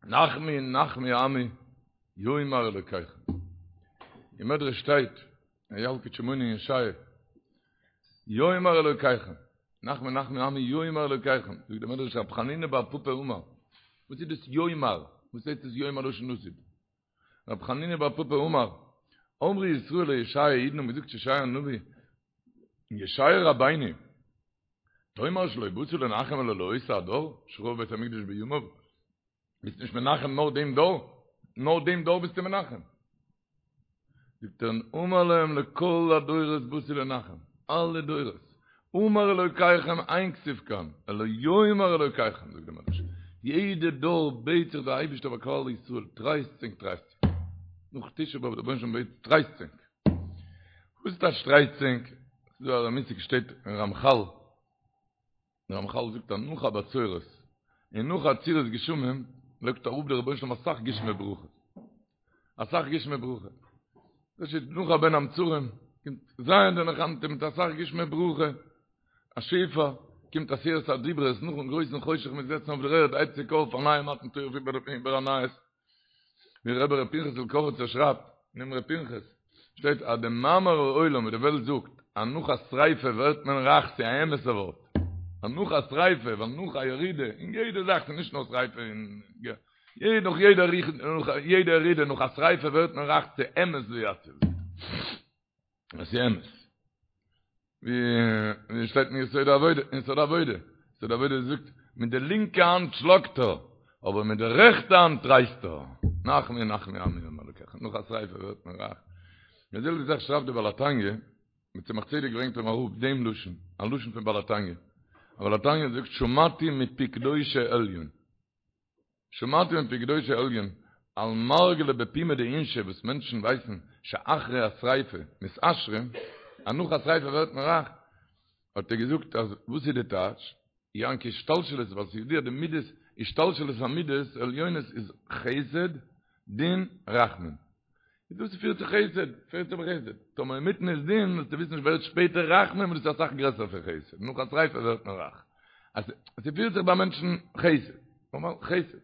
נחמו נחמו עמי יאמר אלוקיכם. אין מדרש שטייט, אין ילקוט שמעוני אין ישעיה, יאמר אלוקיכם, נחמו נחמו עמי יאמר אלוקיכם, זאגט דער מדרש רב חנינא בר פפא אמר, וואס איז דאס יאמר? וואס הייסט עס יאמר לשון עתיד? רב חנינא בר פפא אמר, אמרו ישראל לישעיה, אידן האבן געזאגט צו ישעיה הנביא, ישעיה רבינו, תאמר שלא באת לנחם אלא לאותו הדור, שחרב בית המקדש בימיו, ביסט נישט מנחם נאר דעם דור, נאר דעם דור ביסטו מנחם. זאגט ער, אמר להם לכל הדורות באתי לנחם, אלע דורות, אמר אלוקיכם אין כתיב כאן, אלא יאמר אלוקיכם, זאגט דער מדרש, יעדע דור בעט זיך דער אייבערשטער ביי כלל ישראל, טרייסט ענק טרייסט ענק, נאך תשעה באב דער רבונו של עולם בעט טרייסט ענק, וואס טייטש טרייסט ענק? ס'איז דא א מושג שטייט אין רמחל, דער רמחל זאגט אז נאך א בצורת און נאך עצירת גשמים לייגט אראפ דער רבונו של עולם אסאך גשמי ברכה, אסאך גשמי ברכה, דאס איז נאך א בין המצרים קומט ז' דנחמתא מיט אסאך גשמי ברכה, א שפע, קומט עשרת הדיברות נאכן גרויסן חושך מ'איז געזעצן אויף דער ערד הייבט זיך אויף א נייע מתן תורה איבער א נייעס. ווי רבי ר' פנחס'ל קאריצער שרייבט אין אמרי פנחס, שטייט אז די מאמר העולם ווי די וועלט זאגט אז נאך א שריפה ווערט מען רייך ס'איז א אמת'ע ווארט, אז נאך א שריפה ווייל נאך א ירידה אין יעדע זאך ס'איז נישט נאר שריפה אין נאך יעדע נאך יעדע ירידה נאך א שריפה ווערט מען רייך ס'איז אמת ויציב עס איז אמת. ווי שטייט אין יסוד העבודה, אין יסוד העבודה, יסוד העבודה זאגט, מיט די לינקע האנט שלאגט ער, אבער מיט די רעכטע האנט טרייסט ער. נחמו נחמו עמי יאמר אלקיכם, נאך א שריפה ווערט מען רייך. די זעלבע זאך שרייבט דער בעל התניא, דער צמח צדק ברענגט אים אראפ דעם לשון, א לשון פון בעל התניא. בעל התניא זאגט שמעתי מפי קדושי עליון. שמעתי מפי קדושי עליון על מרגלא בפומיה דאינשי וואס מענטשן ווייסן שאחרי השריפה מתעשרים אז נאך א שריפה ווערט מען רייך האט ער געזאגט אז וואס איז די טייטש יען כי השתלשלות ווייל ס'איז ידוע די מידות השתלשלות המידות עליונות איז חסד דין רחמים איז דאס פירט צו חסד, פירט צו חסד. טאמער אינמיטן איז דין, זאלסטו וויסן ווערט שפעטער רחמים, און דאס איז אסאך גרעסער פון חסד. נאך א שריפה ווערט מען רייך. אז ס'פירט זיך ביי מענטשן חסד. נארמאל חסד.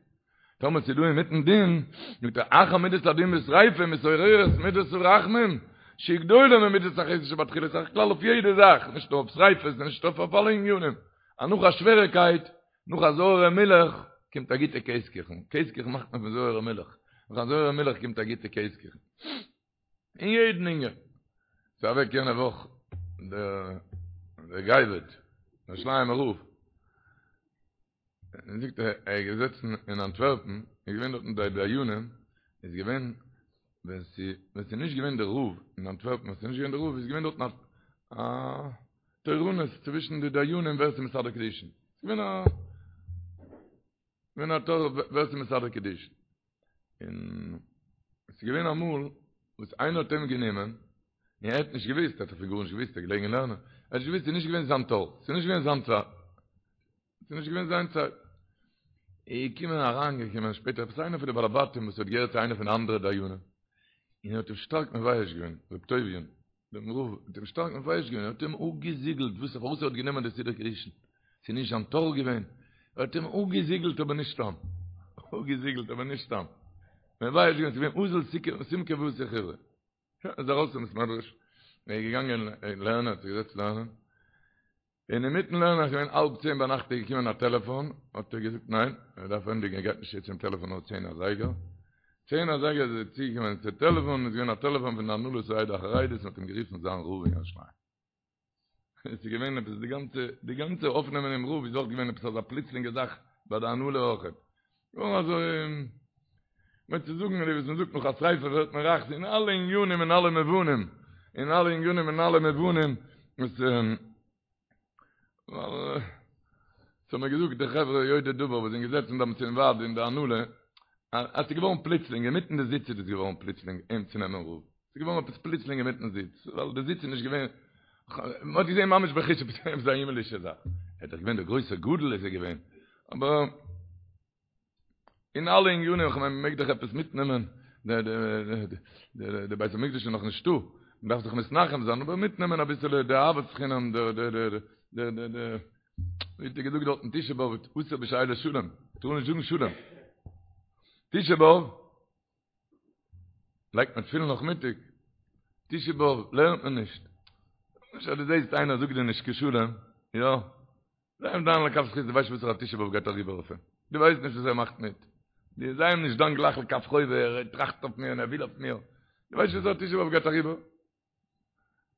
טאמער ס'איז דא אינמיטן דין, זאגט ער, אחר מידת הדין בשריפה מתעוררת מידת הרחמים, שהיא גדולה ממידת החסד שבתחילה, ס'איז א כלל אויף יעדע זאך, נישט נאר אויף שריפות, נישט אויף אלע ענינים. אז נאך א שוועריקייט, נאך א זויערע מילך קומט א גוטע קעז קוכן, קעז קוכן מאכט מען פון זויערע מילך, נאך א זויערע מילך קומט א גוטע קעז קוכן. אין יעדן ענין. ס'איז אוועק יענע וואך דער דער גאב"ד, דער ירושלימ'ער רב, און זאגט ער ער איז געזעצן אין אנטווערפן, איז געווען דארטן די דיינים, איז געווען ווען ס'איז ווען ס'איז נישט געווען דער רב אין אנטווערפן, ווען ס'איז נישט געווען דער רב איז געווען דארטן א תורנות צווישן די דיינים ווער ס'איז מסדר קידושין. ס'איז געווען א געווען א תור ווער ס'איז מסדר קידושין. און ס'איז געווען אמאל וואס איינער האט אים גענומען, און ער האט נישט געוואוסט, ער האט דאך פון גארנישט געוואוסט, ער איז געלעגן אין לערנען, ער האט נישט געוואוסט, ס'איז נישט געווען זיין תור, ס'איז נישט געווען זיין צייט. ס'איז נישט געווען זיין צייט. איז געקומען אריינגעקומען שפעטער עפעס איינער פון די בעלי בתים וואס האט געהערט צו איינער פון די אנדערע דיינים, און ער האט אים שטארק מבייש געווען, ר' טוביה'ן, דעם רב, האט אים שטארק מבייש געווען, ער האט אים אפגעזיגלט, וואס פארוואס ער האט גענומען די סידור קידושין, ס'איז נישט זיין תור געווען, ער האט אים אפגעזיגלט אבער נישט סתם, אפגעזיגלט אבער נישט סתם, מבייש געווען, ס'איז געווען אזיל סומקא ואתי חיורא, שוין, ער איז ארויס פון בית מדרש, ער איז געגאנגען לערנען, האט זיך געזעצט לערנען, און אינמיטן לערנען איז געווען האלב צען ביינאכט איז געקומען א טעלעפאן, האט ער געזאגט ניין, ער דארף ענדיגן ער גייט נישט צו צום טעלעפאן נאר צען אזייגער, צען אזייגער איז ער צוגעקומען צו טעלעפאן, איז געווען א טעלעפאן פון די הנהלת העדה החרדית און האט אים גערופן זיין רב אין ירושלים. עס איז געווען עפעס די גאנצע די גאנצע אויפנעמען דעם רב איז אויך געווען עפעס אזא פלוצלינגע זאך ביי די הנהלה אויכעט. געווארן אזוי, מיין צו זאגן ווי וואס מען זאגט נאך א שריפה ווערט מען רייך, אין אלע עניינים אין אלע מובנים, אין אלע עניינים אין אלע מובנים, וואס ווייל ס'האבן מיר געזאגט די חברה יודעי דבר וואס זענען געזעצן דאמאלס אין ועד אין די הנהלה, אז ס'איז געווארן פלוצלינג, אינמיטן די זיץ איז עס געווארן פלוצלינג אים צו נעמען רב, ס'איז געווארן עפעס פלוצלינג אינמיטן זיץ, ווייל די זיץ איז נישט געווען, מ'האט געזען ממש בחוש עפעס עפעס א הימלישע זאך, ער איז דאך געווען דער גרויסער גדול איז ער געווען, אבער אין אלע ענינים, כ'מיין מ'מעג דאך עפעס מיטנעמען, די בית המקדש איז נאך נישטא, מ'דארף זיך מתנחם זיין, אבער מיטנעמען אביסעלע די אהבת חינם, די די די די די די ווי האט ער געזאגט דארטן תשעה באב, אסור בשאילת שלום, מ'טאר נישט זאגן שלום. תשעה באב לייגט מען תפילין נאכמיטאג, תשעה באב לערנט מען נישט. נישט אז דו זעסט איינער זאגט דיר נישט קיין שלום, יא, זיי אים דן לכף זכות, דו ווייסט נישט וואסערע תשעה באב גייט אריבער אויף אים, דו ווייסט נישט וואס ער מאכט מיט, דו זיי אים נישט דן גלייך לכף חובה, ער טראכט אויף מיר און ער וויל אויף מיר, דו ווייסט נישט וואסערע תשעה באב גייט אריבער.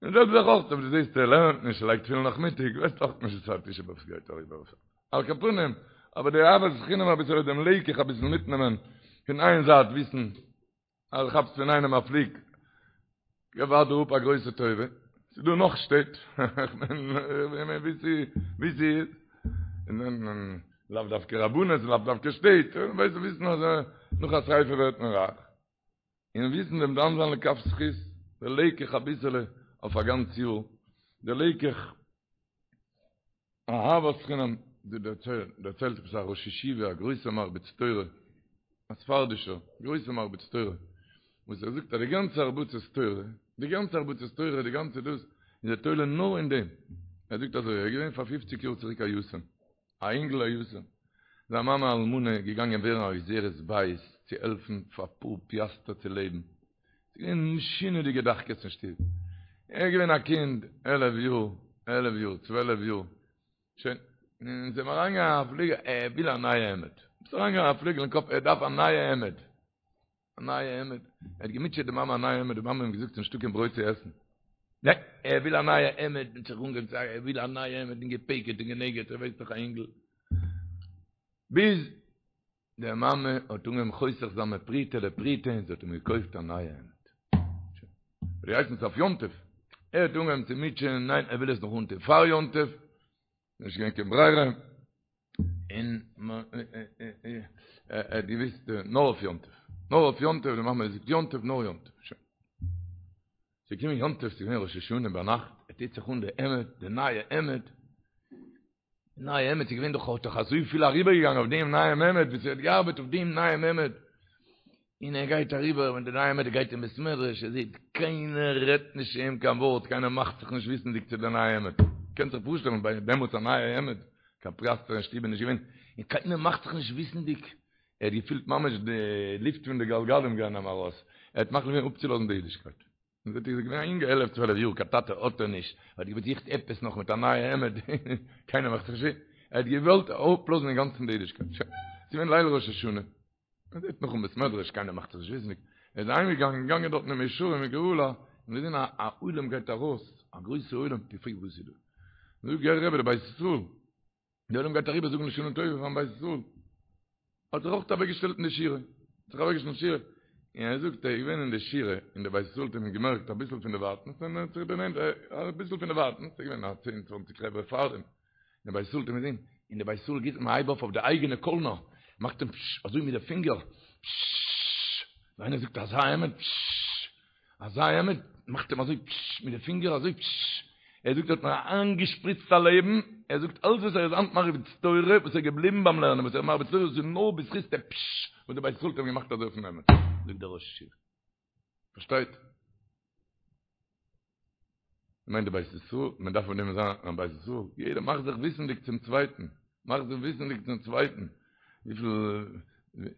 און זעלבע זאך אויך אויב דו זעסט ער לערנט נישט ער לייגט תפילין נאכמיטאג ווייסטו אויך נישט וואסערע תשעה באב ס'גייט אריבער אויף אים. על כל פנים, אבער די אהבת חינם אביסעלע דעם לקח אביסל מיטנעמען פון איין זייט וויסן אז דו כאפסט פון איינעם א פליג ווארט דיר אפ א גרויסע טובה, ס'איז דא נאך שטעט, כ'מיין ווי ס'איז, לאו דווקא רבנות, לאו דווקא שטעט, ווייסט וויסן אז נאך א שריפה ווערט מען רייך. און וויסן דעם דן זיין לכף זכות, די לקח אביסעלע אויף א גאנץ יאר, די לקח אהבת חינם, די דערציילט עפעס א ראש ישיבה א גרויסע מרביץ תורה, א ספרדישער גרויסע מרביץ תורה, וואס ער זאגט אז די גאנצע הרבצת תורה, די גאנצע הרבצת תורה, די גאנצע דאס, איז ער תולה נאר אין דעם, ער זאגט אזוי, ער איז געווען פאר פופציג יאר צוריק א יתום, א אינגל א יתום, זיין מאמע אלמנה איז געגאנגען ווערן א עוזרת בית צו העלפן פאר פאר פיאסטער צו לעבן, ס'איז געווען משונה'דיגע דחקות אין שטוב, ער איז געווען א קינד עלף יאר, עלף יאר, צוועלף יאר, שוין, און ס'איז אים אריינגעגאנגען א פליגל, ער וויל א נייע העמד, ס'איז אריינגעגאנגען א פליגל אין קאפ ער דארף א נייע העמד, א נייע העמד, ער האט געמוטשעט די מאמע א נייע העמד, די מאמע האט אים געזאגט ס'נישטא קיין ברויט צו עסן, ניין, ער וויל א נייע העמד, און זיך אנגעהויבן צו ער וויל א נייע העמד, און געפעקעט און גענעגעט, ער ווייסט דאך א אינגל, ביז די מאמע האט אנגעהויבן חוסך זיין מפרוטה לפרוטה און זי האט אים געקויפט א נייע העמד. שוין. ווי הייסט עס אויף יום טוב? ער האט אנגעהויבן צו מוטשען, ניין ער וויל עס נאך אנטון פאר יום טוב, נישט געווען קיין ברירה, און ער האט געוויסט נאר אויף יום טוב, נאר אויף יום טוב, די מאמע זאגט יום טוב נאר יום טוב, שוין. ס'איז געקומען יום טוב, ס'איז געווען ראש השנה ביינאכט, ער טוט זיך אן די העמד, די נייע העמד, די נייע העמד, ס'איז געווען דאך, האט דאך אזויפיל אריבערגעגאנגען אויף דעם נייעם העמד, וואס ער האט געארבעט אויף דעם נייעם העמד, און ער גייט אריבער מיט די נייע העמד, ער גייט אין בית מדרש, ער זעט קיינער רעדט נישט צו אים קיין ווארט, קיינער מאכט זיך נישט וויסנדיג צו די נייע העמד, קענסט זיך פארשטעלן ביי דעמאלטס א נייע העמד, קיין פיאסטער אין שטוב איז נישט געווען, און קיינער מאכט זיך נישט וויסנדיג, ער האט געפילט ממש די לופט פון די גלגלים גייען אים ארויס, ער האט מחליט געווען אפצולאזן די אידישקייט. און זעט איר איז געווען א אינגע עלף צוועלף יאר קיין טאטע האט ער נישט, ער האט געזוכט עפעס נאך מיט א נייע העמד, קיינער מאכט זיך נישט, ער האט געוואלט אפלאזן אינגאנצן די אידישקייט, שוין, ס'איז געווען ליל ראש השנה, מען זעט נאך אין בית מדרש קיינער מאכט זיך נישט וויסנדיג, ער איז אהיים געגאנגען, געגאנגען דארטן אין מאה שערים אין גאולה, און געזען א א עולם גייט ארויס, א גרויסע עולם, געפרעגט וואס איז דא, זאגט גערער רבי דער בית ישראל, די עולם גייט אריבער זאגן לשנה טובה פארן בית ישראל. האט זיך אויך אוועקגעשטעלט אין די שורה. האט זיך אוועקגעשטעלט אין שורה. און ער זאגט ער איז געווען אין די שורה, און דער בית ישראל האט אים געמערקט אביסל פון דערווייטנס, און ער האט זיך דערנענטערט אביסל פון דערווייטנס, ס'איז געווען א צען צוואנציג חברה פאר דעם. און דער בית ישראל האט אים געזען, און דער בית ישראל גיט אים א הייב אויף אויף די אייגענע קאלנער, מאכט אים פשש אזוי מיט די פינגער, פששש, ווי איינער זאגט אזא העמד, פששש. אזא העמד, מאכט אים אזוי פשש מיט די פינגער אזוי פשש, ער זאגט ער האט מיר איינגעשפריצט א לעבן, ער זאגט אלץ וואס ער איז היינט מרביץ תורה, וואס ער איז געבליבן ביים לערנען, וואס ער איז מרביץ תורה, דאס איז נאר בזכות די פשש וואס די בית ישראל האט אים געמאכט אזוי אויפן העמד, זאגט דער ראש ישיבה. פארשטייט? מיינט די בית ישראל, מען דארף פון דעם זיין א בית ישראל, יעדער מאכט זיך וויסענדיג צום צווייטן, מאכט זיך וויסענדיג צום צווייטן, וויפיל, מען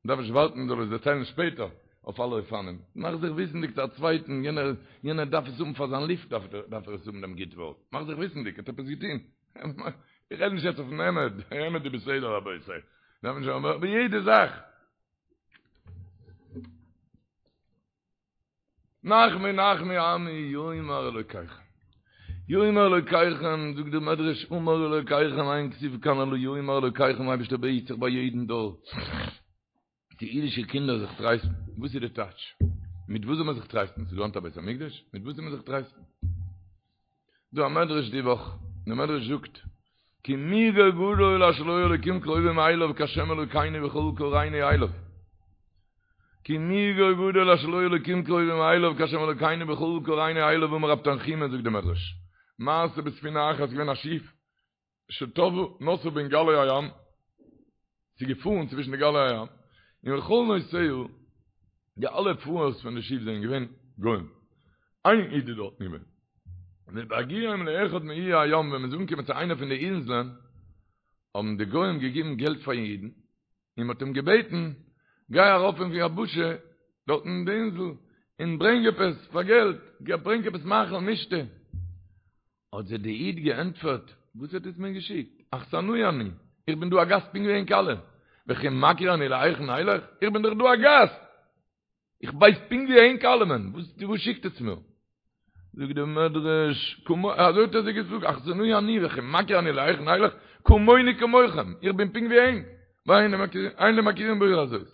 דארף נישט ווארטן מען זאל עס דערציילן שפעטער, אויף אלע אופנים, מאך זיך וויסענדיג צו א צווייטן, יענער, יענער דארף עס האבן פאר זיין לופט דארף ער, דארף ער עס האבן דעם גוט ווארט, מאך זיך וויסענדיג, ער האט עפעס געטון, איך רעד נישט יעצט אויפן העמד, העמד איז בסדר רבותי, דארף נישט, אבער יעדע זאך. נחמו נחמו עמי יאמר אלוקיכם. יאמר אלוקיכם, זאגט דער מדרש, אמר אלוקיכם אין כתיב כאן אלא יאמר אלוקיכם, אייבערשטער בעט זיך ביי יעדן דור, די אידישע קינדער זיך טרייסטן, וואס איז די טייטש? מיט וואס זאל מען זיך טרייסטן? ס'איז דא היינט א בית המקדש? מיט וואס זאל מען זיך טרייסטן? דא א מדרש די וואך, דער מדרש זאגט, כי מי גוי גדול אשר לו אלוקים קרובים אליו כהשם אלוקינו בכל קראנו אליו. כי מי גוי גדול אשר לו אלוקים קרובים אליו כהשם אלוקינו בכל קראנו אליו אמר רב תנחומא זאגט דער מדרש, מעשה בספינה אחת געווען א שיף שטבעה נסעה בין גלי הים, ס'איז געפארן צווישן די גלי הים, און וכל נוסעיה, די אלע פארערס פון די שיף זענען געווען גוים, איין איד איז דארט געווען, ובהגיעם לאחד מאיי הים, ווען מ'איז אנגעקומען צו איינע פון די אינזלען, האבן די גוים געגעבן געלט פארן אידן, און מ'האט אים געבעטן. גיי ארויף אויפן יבשה, דארטן אין די אינזל, און ברענג עפעס פאר געלט, ברענג עפעס מאכל משתה. האט זיי די איד געענטפערט, וואס האט עטס מיר געשיקט? אכסנאי אני, איך בין דא א גאסט פונקט ווי ענק אלע, וכי מכיר אני להיכן אלך? איך בין דאך דא א גאסט! איך ווייס פונקט ווי ענק אלעמען, וואס שיקט עטס מיר? זאגט דער מדרש, אזוי האט ער זיי געזאגט, אכסנאי אני וכי מכיר אני להיכן אלך, כמוני כמוכם, איך בין פונקט ווי ענק, ואין לי מכירים בעיר הזאת.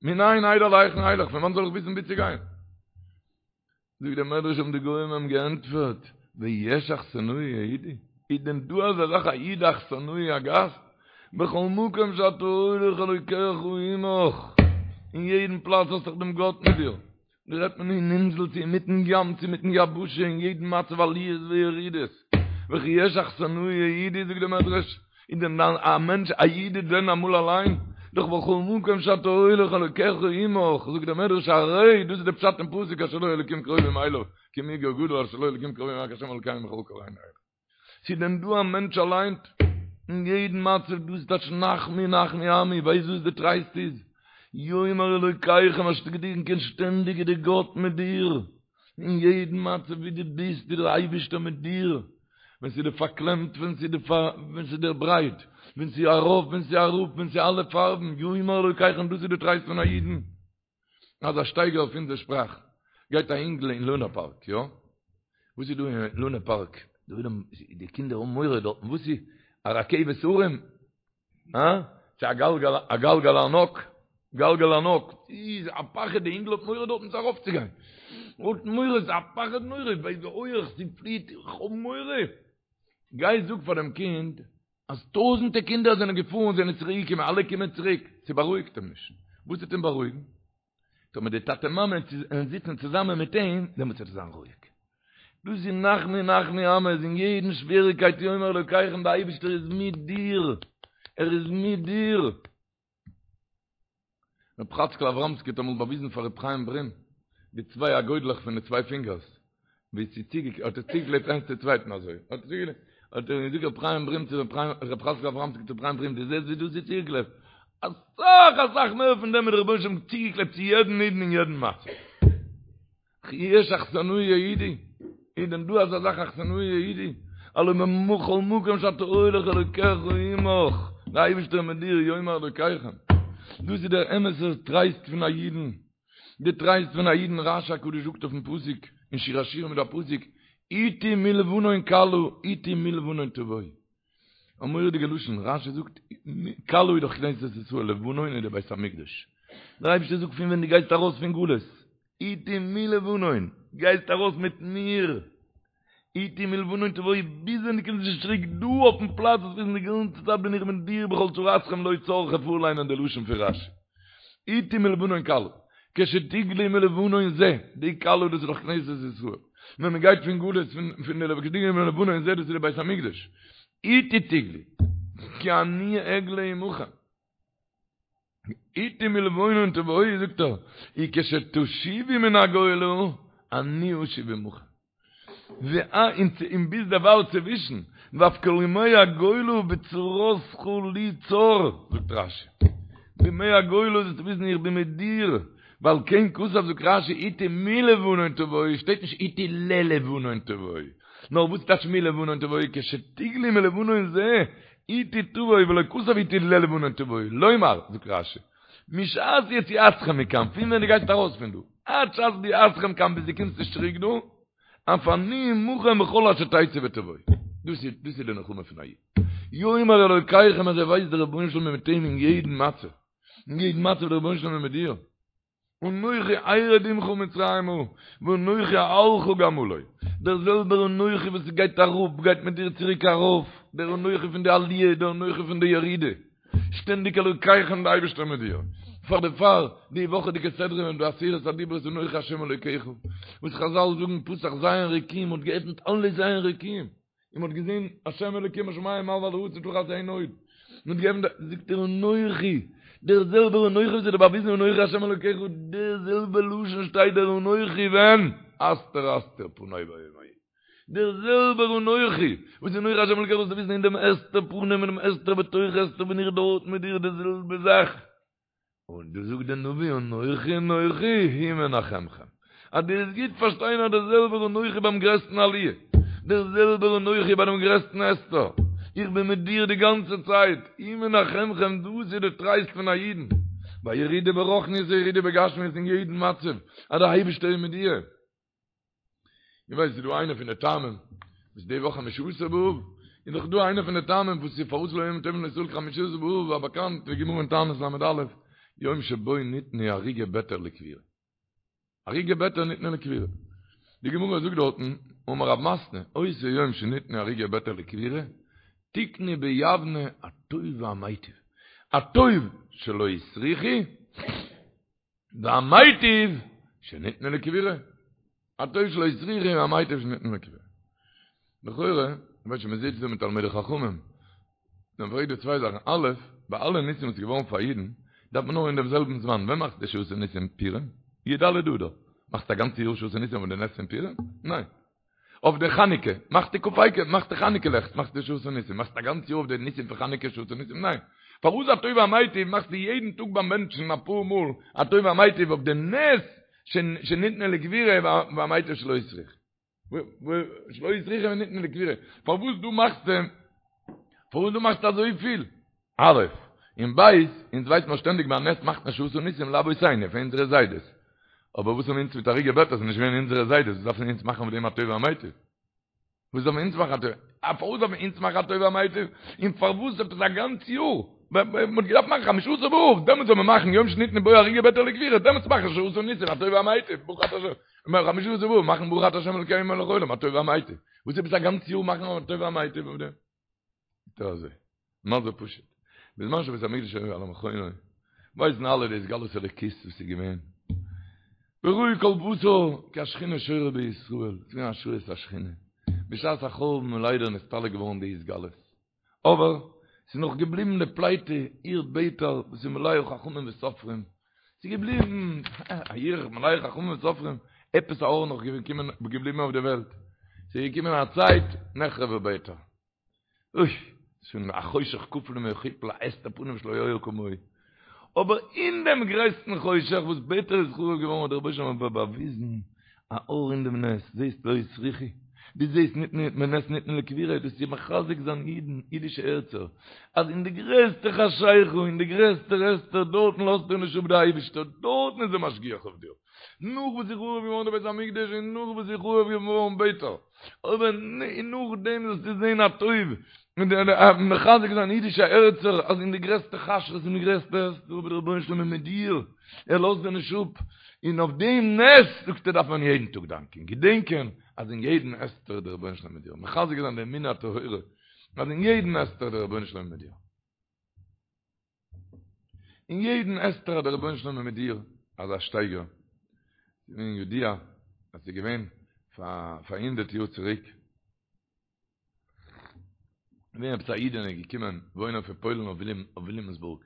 מנין אדע להיכן אלך, פון וואנט זאל איך וויסן וואו צו גיין? זאגט דער מדרש האבן די גוים אים געענטפערט, ויש אכסנאי יהודי? איז דען דא אזא זאך א איד אכסנאי א גאסט? בכל מקום שאתה הולך אלוקיך עמך, אין יעדן פלאץ האסט דאך דעם גאט מיט דיר, דא רעדט מען אין אינזל צו אינמיטן ים צו אינמיטן יבשה אין יעדן מצב עליות וירידות, וכי יש אכסנאי יהודי זאגט דער מדרש, איז דען א מענטש א איד איז דען אמאל אליין? דאך בכל מקום שאתה הולך אלוקיך עמך, זאגט דער מדרש הרי דאס איז די פשט אין פסוק אשר לו אלוקים קרובים אליו כי מי גוי גדול אשר לו אלוקים קרובים רק השם אלוקינו בכל קראנו אליו. ס'איז דען דא א מענטש אליין אין יעדן מצב? דאס איז טייטש נחמו נחמו עמי, ווייסט וואס די טרייסט איז? יאמר אלוקיכם אז געדענקען שטענדיג איז די גאט מיט דיר, אין יעדן מצב ווי דו ביסט איז דער אייבערשטער מיט דיר, ווען ס'איז דיר פארקלעמט, ווען ס'איז דיר ווען ס'איז דיר ברייט, ווען ס'איז ארויף, ווען ס'איז אראפ, ווען ס'איז אלע פארבן, יאמר אלוקיכם, דאס איז די טרייסט פון א אידן. אזא שטייגער אויף אונזער שפראך, גייט א אינגל אין לונה פארק, יא? וואס איז דא אין לונה פארק? די קינדער האבן מורא דארטן, וואס איז? א רכבת הרים? הא? צו א גלגל, א גלגל ענק, גלגל ענק, איז א פחד, די אינגל האט מורא דארטן צו ארויפצוגיין, האט מורא, ס'איז א פחד נורא, ווייל די הויעך, ס'פליעט, איך האב מורא. גיי זאג פאר דעם קינד, אז טויזענטע קינדער זענען געפארן, זענען צוריק געקומען, אלע קומען צוריק, ס'בארואיגט אים נישט. וואס וועט אים בארואיגן? טאמער די טאטע מאמע וועלן זיצן צוזאמען מיט אים, דעמאלטס וועט ער זיין רואיג. דאס איז נחמו נחמו עמי, איז אין יעדן שוועריגקייט יאמר אלוקיכם, די אייבערשטער איז מיט דיר, ער איז מיט דיר. ר' חאצקל אבראמסקי האט אמאל באוויזן פאר ר' חיים ברים די צוויי אגודלעך פון די צוויי פינגערס, ווי ס'איז צוגע האט ער צוגעקלעבט איינס צו צווייטן אזוי, האט ער צוגעקלעבט, האט ער געזאגט ר' חיים ברים צו ר' חאצקל אבראמסקי צו ר' חיים ברים, דו זעסט ווי דאס איז צוגעקלעבט? אסאך אסאך מער פון דעם איז דער רבונו של עולם צוגעקלעבט צו יעדן אידן אין יעדן מצב. וכי יש אכסנאי יהודי, איז דען דא אזא זאך אכסנאי יהודי? הלא בכל מקום שאתה הולך אלוקיך עמך, דער אייבערשטער איז מיט דיר, יאמר אלוקיכם. דאס איז דער אמת'ער טרייסט פון א אידן, די טרייסט פון א אידן, רש"י הקדוש זאגט אויפן פסוק, אין שיר השירים איז דא א פסוק, אתי מלבנון כלה, אתי מלבנון תבואי. א מורא'דיגע לשון, רש"י זאגט, כלה איז דאך כנסת ישראל, לבנון איז דער בית המקדש. דער אייבערשטער זאגט פון ווען דו גייסט ארויס פון גלות, אתי מלבנון, גייסט ארויס מיט מיר, אתי מלבנון תבואי, ביז ווען דו קומסט נישט צוריק דא אויפן פלאץ, זאלסט וויסן די גאנצע צייט בין איך מיט דיר בכל צרתכם לא צר, כ'וועל פארליינען די לשון פון רש"י. אתי מלבנון כלה, כשתגלי מלבנון זה, די כלה דאס איז דאך כנסת ישראל, ווען מען גייט פון גלות פון די כשתגלי מלבנון זה דאס איז די בית המקדש, אתי תגלי, כי אני אגלה עמכם. אתי מלבנון תבואי זאגט ער, וכשתשובו מן הגולה, אני אשוב עמכם. און ביז דערווייל צווישן, ואף כל ימי הגולה בצרתך לי צר, זאגט רש"י. בימי הגולה זאלסטו וויסן איך בין מיט דיר, ועל כן כתב זאגט רש"י אתי מלבנון תבואי, שטייט נישט אתי ללבנון תבואי, נאר וואס טייטש מלבנון תבואי, כשתגלי מלבנון זה, אתי תבואי ולא כתב אתי ללבנון תבואי, לומר, זאגט רש"י, משעת יציאתכם מכאן, פון ווען דו גייסט ארויס פון דא, עד שעת ביאתכם כאן ביז דו קומסט נישט צוריק דא, אף אני עמכם בכל אשר תצאו ותבואו. דאס איז דאס איז די נחמה פון א איד. יאמר אלוקיכם אז ער ווייסט דער רבונו של עולם איז מיט אים אין יעדן מצב. אין יעדן מצב דער רבונו של עולם איז מיט דיר. אנכי ארד עמך מצרימה ואנכי אעלך גם עלה. דער זעלבער אנכי וואס גייט אראפ גייט מיט דיר צוריק ארויף, דער אנכי פון די עליה, דער אנכי פון די ירידה. שטענדיג אלוקיכם די אייבערשטער מיט דיר. פאר דערפאר די וואכעדיגע סדרה און די עשרת הדיברות אנכי השם אלוקיך, וואס חזל זאגן פתח ז' רקיעים האט געעפנט אלע ז' רקיעים. און מ'האט געזען השם אלוקים בשמים ממעל ועל הארץ ותחת אין עוד. מ'האט געעפנט, זאגט ער אנכי, דער זעלבער אנכי וואס האט דיר באוויזן אנכי השם אלוקיך, דער זעלבער לשון שטייט דער אנכי ווען? הסתר אסתיר פני ביום ההוא. דער זעלבער אנכי וואס אנכי השם אלוקיך זאלסטו וויסן אין דעם הסתר פנים און דעם הסתר בתוך הסתר בין איך דארט מיט דיר די זעלבע זאך. און דא זאגט דער נביא אנכי אנכי הוא מנחמכם, אז דו וועסט גוט פארשטיין אז דער זעלבער אנכי ביים גרעסטן עליה, דער זעלבער אנכי ביי דעם גרעסטן הסתר, איך בין מיט דיר די גאנצע צייט, הוא מנחמכם, דאס איז די טרייסט פון א אידן, ביי ירידה ברוחניות און ירידה בגשמיות אין יעדן מצב, אז דער אייבערשטער איז מיט דיר. איך ווייס ס'איז דא איינע פון די טעמים וואס די וואך חמשה עשר באב איז דאך דא איינע פון די טעמים וואס איז פארוואס לא היו ימים טובים לישראל כחמשה עשר באב א באקאנט די גמרא אין תענית ל"א יום שבו ניתנו הרוגי ביתר לקבורה הרוגי ביתר ניתנו לקבורה די גמרא זאגט דארטן אמר רב מתנה אותו יום שניתנו הרוגי ביתר לקבורה תיקנו ביבנה הטוב והמיטיב הטוב שלא הסריחו והמיטיב שניתנו לקבורה. הטוב שלא הסריחו והמיטיב שניתנו לקבורה. לכאורה, ווייל שוין מ'זיצט דא מיט תלמידי חכמים, דאן פרעגט דא צוויי זאכן, א', ביי אלע ניסים וואס איז געווארן פאר אידן, דארף מען נאר אין דעם זעלבן זמן, ווען מאכסטו שעשה ניסים פורים? י"ד אדר. מאכסטו א גאנצע יאר שעשה ניסים אויף די נס פון פורים? ניין. אויף די חנוכה, מאכסטו כ"ה, מאכסטו חנוכה לעכט, מאכסטו שעשה ניסים, מאכסטו א גאנץ יאר אויף די ניסים פון חנוכה שעשה ניסים? ניין. פארוואס הטוב והמיטיב מאכסטו יעדן טאג ביים בענטשן אפאר מאל הטוב והמיטיב אויף די נס שניתנו לקבורה והמיטיב שלא הסריחו? שלא הסריחו וניתנו לקבורה. פארוואס דא מאכסטו, פארוואס דא מאכסטו אזויפיל? א', און ב', אונז ווייסט מען שטענדיג ביי א נס מאכט מען שעשה ניסים לאבותינו, פאר אונזערע זיידעס. אבער וואס האבן אונז מיט הרוגי ביתר, ס'איז נישט געווען אונזערע זיידעס, וואס דארפן אונז מאכן אויף דעם הטוב והמיטיב? וואס דארפן אונז מאכן הטוב? א פארוואס דארפן אונז מאכן הטוב והמיטיב? און פארוואס עפעס א גאנץ יאר? מ'האט געדארפט מאכן חמשה עשר באב, דעמאלטס זאל מען מאכן יום שניתנו בו הרוגי ביתר לקבורה, דעמאלטס מאכן שעשה ניסים הטוב והמיטיב, ברוך אתה השם, חמשה עשר באב מאכן ברוך אתה השם אלוקינו מלך העולם הטוב והמיטיב. וואס עפעס א גאנץ יאר מאכן הטוב והמיטיב אויף דעם? טא אזוי. מה זה פשוט. בזמן שבית המקדש היה על מכונו, ווייסן אלע די התגלות אלוקית וואס איז געווען. וראו כל בשר כי השכינה שורה בישראל, ס'איז געווען השראת השכינה. בשעת החורבן איז ליידער נסתלק געווארן די התגלות. אבער, ס'איז נאך געבליבן די פליטה, עיר ביתר, וואס איז מלאה חכמים וסופרים. ס'איז געבליבן, א עיר מלאה חכמים וסופרים, עפעס א אור נאך געקומען, געבליבן אויף די וועלט. ס'איז געקומען א צייט, נחרבה ביתר. אוי, שוין א חושך כפול ומכופל, א הסתר פנים שלא היה כמוהו. אבער אין דעם גרעסטן חושך וואס ביתר איז חרוב געווארן האט דער רבוש ע באוויזן א אור אין דעם נס, זעסט לא הסריחו, דו זעסט ניתנו בנס ניתנו לקבורה, דאס איז מחזק זיין אידן, אידישע הערצער, אז אין די גרעסטע חשיכה, אין די גרעסטע הסתר, דארטן לאזט דיר נישט אפ דער אייבישטער, דארטן איז ער משגיח אויף דיר. נאך וואס איז חרוב געווארן די בית המקדש און נאך וואס איז חרוב געווארן ביתר, אבער נאכדעם זאלסטו זען הטוב, און מחזק זיין אידישע הערצער אז אין די גרעסטע חשכות און די גרעסטע הסתר אבער דער רבונו של עולם איז מיט דיר, ער לאזט דיר נישט אפ, און אויף דעם נס זאגט ער דארף מען יעדן טאג דאנקען, געדענקען אז אין יעדן הסתר איז דער רבונו של עולם מיט דיר, מחזק זיין די אמונה הטהורה אז אין יעדן הסתר איז דער רבונו של עולם מיט דיר. אין יעדן הסתר איז דער רבונו של עולם מיט דיר, אזא שטייגער, ס'איז געווען ידוע אז ס'איז געווען פאר פאר הונדערט יאר צוריק, געווען עפעס א אידענע געקומען וואוינען פון פוילן אויף וויליאמסבורג,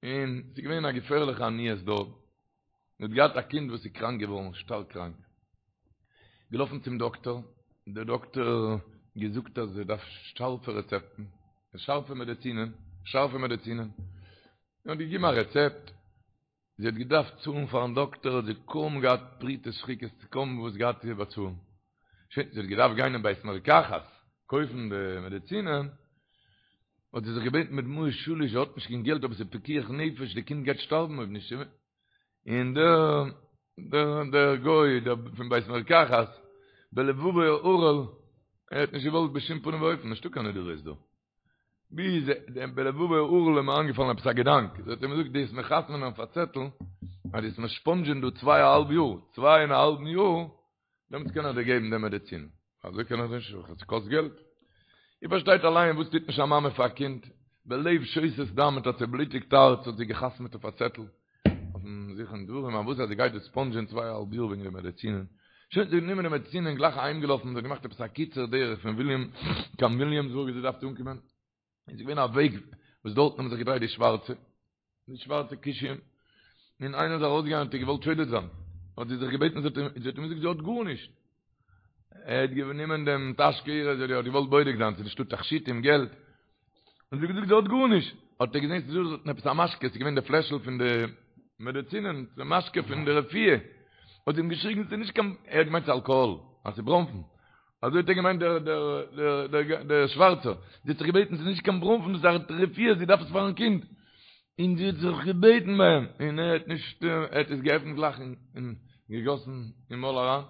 און ס'איז געווען א געפערליכע עניות דארט, זי האט געהאט א קינד וואס איז קראנק געווארן, שטארק קראנק. געלאפן צום דאקטאר, דער דאקטאר געזאגט אז זי דארף שארפע רעצעפטן, שארפע מעדעצינען, שארפע מעדעצינען. און האט געגעבן א רעצעפט, זי האט געדארפט צאלן פארן דאקטאר, האט זי קוים געהאט פרוטות שחיקות, קוים וואס געהאט צו באצאלן. שוין, זי האט געדארפט גיין אין בית מרקחת קויפן די מעדעצינען, האט זי זיך געבעטן בדמעות שליש, זי האט נישט קיין געלט אבער ס'איז פיקוח נפש, די קינד גייט שטארבן אויב נישט. און דער דער דער גוי דער פון בית מרקחת בלבבו ערל ער האט נישט געוואלט בשום פנים ואופן נישטא קיין נדבות דא ביז דעם בלבבו ערל איז אים איינגעפאלן עפעס א געדאנק ער האט אים געזאגט דו וועסט מיר חתמ'נען אויף א צעטל אז דו וועסט מיר ספאנדזשען דא צוויי א האלב יאר צוויי און א האלבן יאר דעמאלטס קען איך דיר געבן די מעדיצין. אזוי קען איך נישט, עס קאסט געלט. איר פארשטייט אליין וואס טוט נישט א מאמע פאר א קינד, בלב שותת דם מיט א צעבלוטיגט הארץ האט זי געחתמעט אויף א צעטל, אויפן זיכרון דברים, אז וואס אז זי גייט דא ספאנדזשען צוויי א האלב יאר וועגן די מעדיצינען. שוין, זי האט גענומען די מעדיצינען גלייך אהיימגעלאפן, זי האט געמאכט עפעס א קיצור דרך פון וויליאם קיין וויליאמסבורג ווי זי דארף אנקומען. איז געווען א וועג וואס דארטן האבן זיך געדרייט די שווארצע, די שווארצע כושים, און איינער איז ארויסגעגאנגען האט איר געוואלט שודד זיין, האט זי זיך געבעטן, זי האט אים געזאגט זי האט גארנישט, ער האט גענומען דעם טאשקע אירע, זי האט געוואלט בודק זיין צו נישטא תכשיטים, געלט, און זי האט געזאגט זי האט גארנישט. האט ער געזען ס'איז דא דארטן עפעס א משקה, ס'איז געווען די פלעשל פון די מעדעצינען, די משקה פון די רפואה, האט זי אים געשריגן ס'איז נישט קיין, ער האט געמיינט ס'איז אלקאהאל, אז ס'איז בראנפן, אזוי האט ער געמיינט דער דער דער דער שווארצער, זי האט זיך געבעטן ס'איז נישט קיין בראנפן דאס איז א רפואה זי דארף עס פארן קינד, און זי האט זיך געבעטן ביי אים, און ער האט נישט, ער האט עס געעפנט גלייך און געגאסן אין מויל אריין.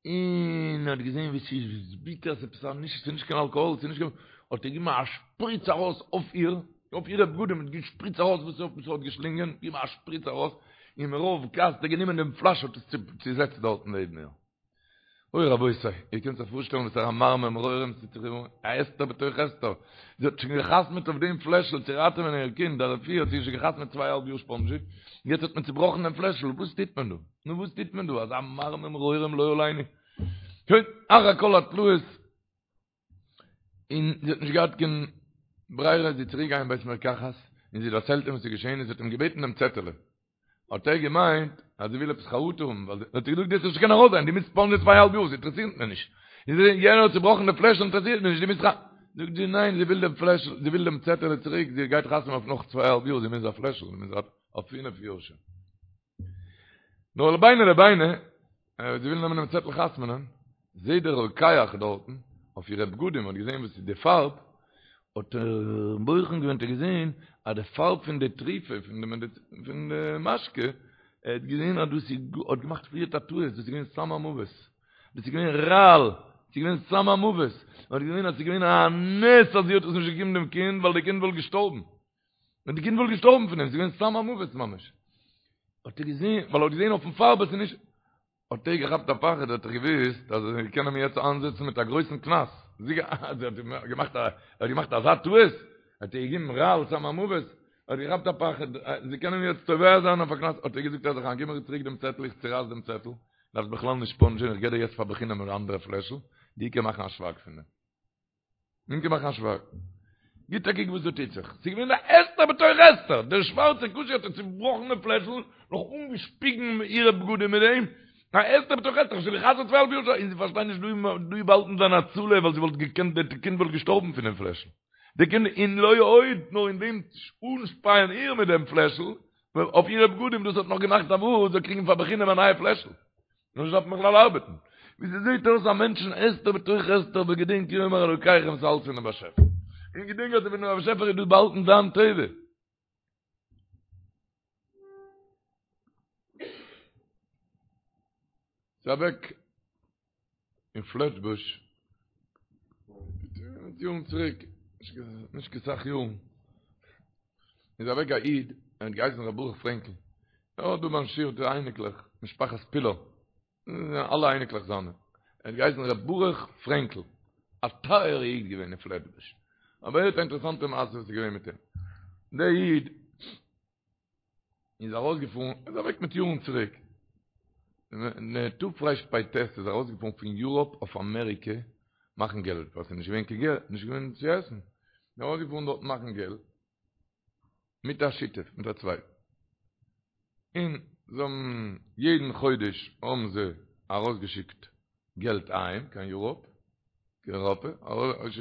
און ער האט געזען ווי ס'איז ביטער, ס'איז עפעס א נישט, ס'איז נישט קיין אלקאהאל, ס'איז נישט קיין, האט ער געגעבן א שפריץ ארויס אויף איר, אויף אירע בגדים, האט געשפריצט ארויס וואס ער האט געשלינגען, געגעבן א שפריץ ארויס, און מרוב כעס האט ער גענומען דעם פלאש האט עס צוזעצט דארטן נעבן איר. אוי רבותי, איר קענט זיך פארשטעלן וואס פאר א מרמר מרורים ס'טוט זיך איר אן, א הסתר בתוך הסתר, זי האט שוין געחתמעט אויף דעם פלעשל צו ראטעווען איר קינד, א רפואה האט זי שוין געחתמעט צוויי אהאלב יאר ספאנדזשי, יעצט האט מען צובראכן דעם פלעשל, וואס טוט מען דא? נו וואס טוט מען דא? אזא מרמר מרורים לא עלינו. שוין, אחר כל התלאות, און זי האט נישט געהאט קיין ברירה, זי איז צוריק געגאנגען אין בית מרקחת, און זי דערציילט אים וואס איז געשען, און זי האט אים געבעטן דעם צעטעלע. האט ער געמיינט אז זי וויל עפעס חרטה האבן, ווייל האט ער געזאגט דו וועסט נישט קענען ארויסגיין, דו מוזט ספאנדזשען צוויי אהאלב יאר, ס'אינטערעסירט מיר נישט. און זי, יענער האט צובראכן די פלעשל, אינטערעסירט מיר נישט, דו מוזט ח. זאגט זי ניין, זי וויל דעם פלעשל, זי וויל דעם צעטעלע צוריק, זי גייט חתמ'ן אויף נאך צוויי אהאלב יאר, זי מוז א פלעשל, זי מוז אויף פינף יאר שוין. נאר לביני לביני, זי וויל נעמען דעם צעטל חתמ'נען, זעהט דער רוקח דארטן, אויף אירע בגדים, האט געזעהן וואס איז די פארב, האט ער בוחן געווען, האט ער געזעהן אז די פארב פון די תרופה, פון די מעדיצין, פון די משקה, ער האט געזעהן אז דאס איז, האט געמאכט פריערט א טעות, דאס איז געווען סם המוות, דאס איז געווען רעל, ס'איז געווען סם המוות, ער האט געזעהן אז ס'איז געווען א נס אז זי האט עס נישט געגעבן דעם קינד, ווייל די קינד וואלט געשטארבן. ווען די קינד וואלט געשטארבן פון דעם, ס'איז געווען סם המוות ממש. האט ער געזען, ווייל ער האט געזען אויפן פארב אז ס'איז נישט, האט ער געכאפט א פחד, האט ער געוואוסט אז זיי קענען אים יעצט איינזעצן מיט א גרויסן קנס. זי האט געמאכט א, ער האט געמאכט אזא טעות, האט ער געגעבן רעל סם המוות, האט געכאפט א פחד, זיי קענען אים יעצט תובע זיין אויף א קנס, האט ער געזאגט אז איך גיב מיר צוריק דעם צעטל, איך צורייס דעם צעטל, דארפסט בכלל נישט ספאנדזשען, איך גיב דיר יעצט פאר בחינם אן אנדערע פלעשל, די קען מאכן א שווייג פון דעם. מען קען מאכן א שווייג. גיט א קוק וואס דא טוט זיך. ס'איז געווען א הסתר בתוך הסתר. דער שווארצער כושי האט איר צובראכן דעם פלעשל, נאך אנגעשפיגן אירע בגדים מיט דעם. א הסתר בתוך הסתר. שוין גע'חתמ'ט צוויי האלב יאר. און זי פארשטייט נישט דא איז באהאלטן זיין הצלה, ווייל זי וואלט געקענט, די קינד וואלט געשטארבן פון דעם פלעשל. די קינד, און לא עוד, נאר אין דעם אנשפייען איר מיט דעם פלעשל, אויף אירע בגדים, דאס האט נאך געמאכט א וואס זאל קריגן פאר בחינם א נייע פלעשל. נישט דארף מען בכלל ארבעטן. ווי ס'זעט אויס א מענטשן הסתר בתוך הסתר אבער געדענק יאמר אלוקיכם ס'איז אלץ פונעם באשעפער. און געדענק אז פונעם באשעפער איז דא באהאלטן דיין טובה. ס'איז אוועק אין פלעטבוש מיט יארן צוריק, נישט קיין סאך יארן, איז אוועק א איד, ער האט געהייסן ר' ברוך פרענקל, ער האט דא ביים שיעור די אייניקלעך, משפחת פילא, אלע אייניקלעך זיינע, ער האט געהייסן ר' ברוך פרענקל, א טייערע איד געווען אין פלעטבוש, אבער הערט א אינטערעסאנטע מעשה וואס איז געווען מיט אים, דער איד איז ארויסגעפארן, ער איז אוועק מיט יארן צוריק, אין תרפ"ט איז ער ארויסגעפארן פון יוראפ אויף אמעריקע מאכן געלט, ווייל ס'איז נישט געווען קיין געלט, נישט געווען צו עסן, איז ארויסגעפארן דארט מאכן געלט, מיט א שותף, מיט א צווייטן, און זיי האבן יעדן חודש האבן זיי ארויסגעשיקט געלט אהיים קיין יוראפ, קיין אייראפע, און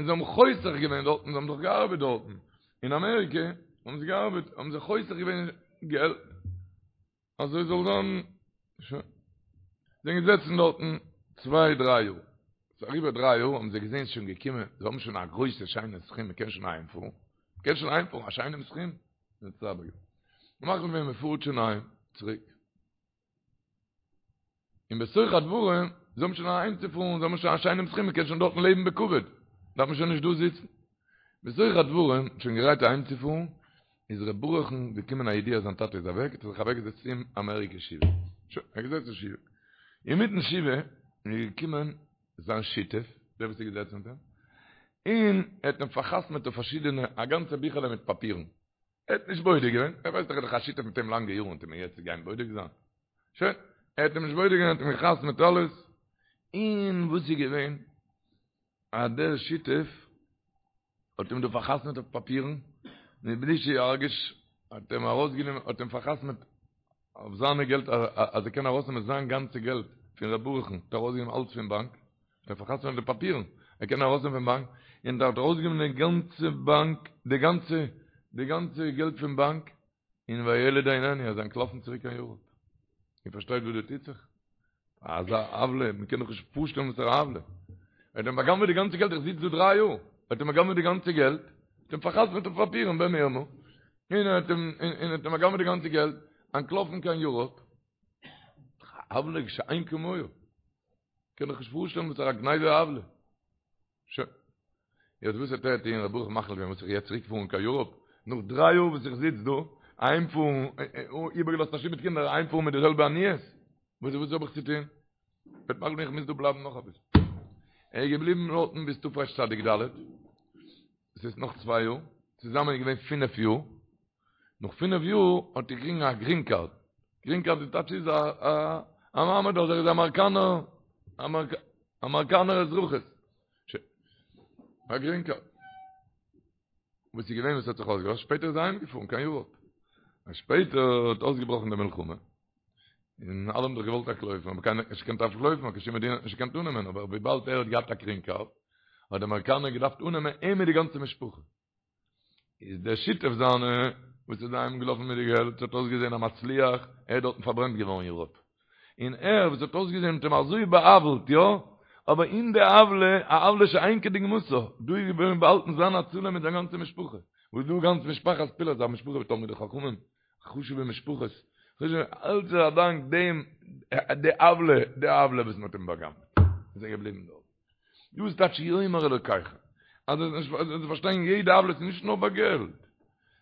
זיי האבן חוסך געווען דארטן, זיי האבן דאך געארבעט דארטן, אין אמעריקע האבן זיי געארבעט, האבן זיי חוסך געווען געלט, אזוי זאל זיין, שוין. זיי זענען געזעצן דארטן צוויי דריי יאר, ס'איז אריבער דריי יאר האבן זיי געזען ס'איז שוין געקומען, זיי האבן שוין א גרויסע שיינע סכום, מ'קען שוין אהיימפארן, מ'קען שוין אהיימפארן, א שיינעם סכום, מחליט געווען מ'פארט שוין אהיים צוריק. און בתוך הדברים, זיי האבן שוין אהיימצופארן, זיי האבן שוין א שיינעם סכום, מען קען שוין דארטן לעבן בכבוד, דארף מען שוין נישט דא זיצן. בתוך הדברים, שוין גרייט אהיימצופארן, איז ר' ברוך'ן געקומען א ידיעה אז זיין טאטע איז אוועק, האט ער זיך אוועקגעזעצט אין אמעריקע שבעה. שוין, ער האט געזעצן שבעה. אינמיטן שבעה איז געקומען זיין שותף, דער וואס איז געזעצן מיט אים, און ער האט אים פאר'חתמ'עט אויף פארשידענע, א גאנצע ביכעלע מיט פאפירן. ער האט נישט בודק געווען, ער ווייסט דאך ער איז דאך א שותף מיט אים לאנגע יארן, וועט ער מיר יעצט גיין בודק זיין? שוין, ער האט אים נישט בודק געווען, ער האט אים גע'חתמ'עט אלעס, און וואס איז געווען? אז דער שותף האט אים דא פאר'חתמ'עט אויף פאפירן, מבלי שירגיש, האט אים ארויסגענומען, האט אים פאר'חתמ'עט אויף זיינע געלט, אז ער קען ארויסנעמען זיין גאנצע געלט פון ר' ברוך'ן, האט ער ארויסגענומען אלץ פון באנק, ער פאר'חתמ'עט די פאפירן, ער קען ארויסנעמען פון באנק, און האט ארויסגענומען די גאנצע באנק, די גאנצע, די גאנצע געלט פון באנק, און והילד איננו, ער איז אנטלאפן צוריק קיין יוראפ. איר פארשטייט וואס דא טוט זיך? אזא עוולה, מען קען דאך נישט פארשטעלן וואס פאר א עוולה. ער האט אים בא'גנב'עט די גאנצע געלט, איך זיץ דא דריי יאר, ער האט אים בא'גנב'עט די גאנצע געלט, האט אים פאר'חתמ'עט אויף פאפירן במרמה, און ער האט אים, און האט אים בא'גנב'עט די גאנצע געלט, אנטלאפן קיין יוראפ. עוולה שאין כמוהו. קען דאך נישט פארשטעלן וואס פאר א גניבה עוולה. שוין. יעצט וואס האט ער טוהן ר' ברוך מחליט געווען וואס איך יעצט צוריק פארן קיין יוראפ נאך דריי יאר וואס איך זיץ דא אהיים פארן איבערגעלאזט א שטוב מיט קינדער אהיים פארן מיט די זעלבע עניות וואס וואס האב איך צו טוהן וועט מאכן איך מוז דא בלייבן נאך אביסל ער איז געבליבן דארטן ביז תרצ"ד עס איז נאך צוויי יאר צוזאמען איז געווען פינף יאר נאך פינף יאר האט ער געקריגן א גרין קארד גרין קארד די טייטש איז א א מעמד אז ער איז אמעריקאנער אמעריקאנער אזרחות א גרין קארד. וואס איז געווען וואס האט זיך אויסגעלאזט? שפעטער איז ער אהיימגעפארן קיין יוראפ. און שפעטער האט אויסגעבראכן די מלחמה. און אלע האבן דאך געוואלט אנטלויפן, אבער קיינער האט נישט געקענט אנטלויפן, קיין שום מדינה האט נישט געקענט אננעמען, אבער וויבאלד ער האט געהאט א גרין קארד, האט די אמעריקאנער געדארפט אננעמען אים מיט די גאנצע משפחה. איז דער שותף זיינע וואס איז אהיים געלאפן מיט די געלט האט אויסגעזען א מצליח, ער איז דארטן פארברענט געווארן אין יוראפ, און ער וואס האט אויסגעזען מ'האט אים אזוי בא'עוול'ט יא, אבער אין די עוולה, א עוולה שאין כדוגמתה, דא איז געווען באהאלטן זיין הצלה מיט זיין גאנצע משפחה, וואס דא גאנץ משפחת פילאפ, א משפחה תלמידי חכמים, חשובע משפחות, אלץ איז א דאנק דעם די עוולה, די עוולה וואס מען האט אים בא'גנב'ט, איז ער געבליבן דארט. דאס טייטש יאמר אלוקיכם. אז עס נישט אז פארשטיין יעדע עוולה איז נישט נאר ביי געלט.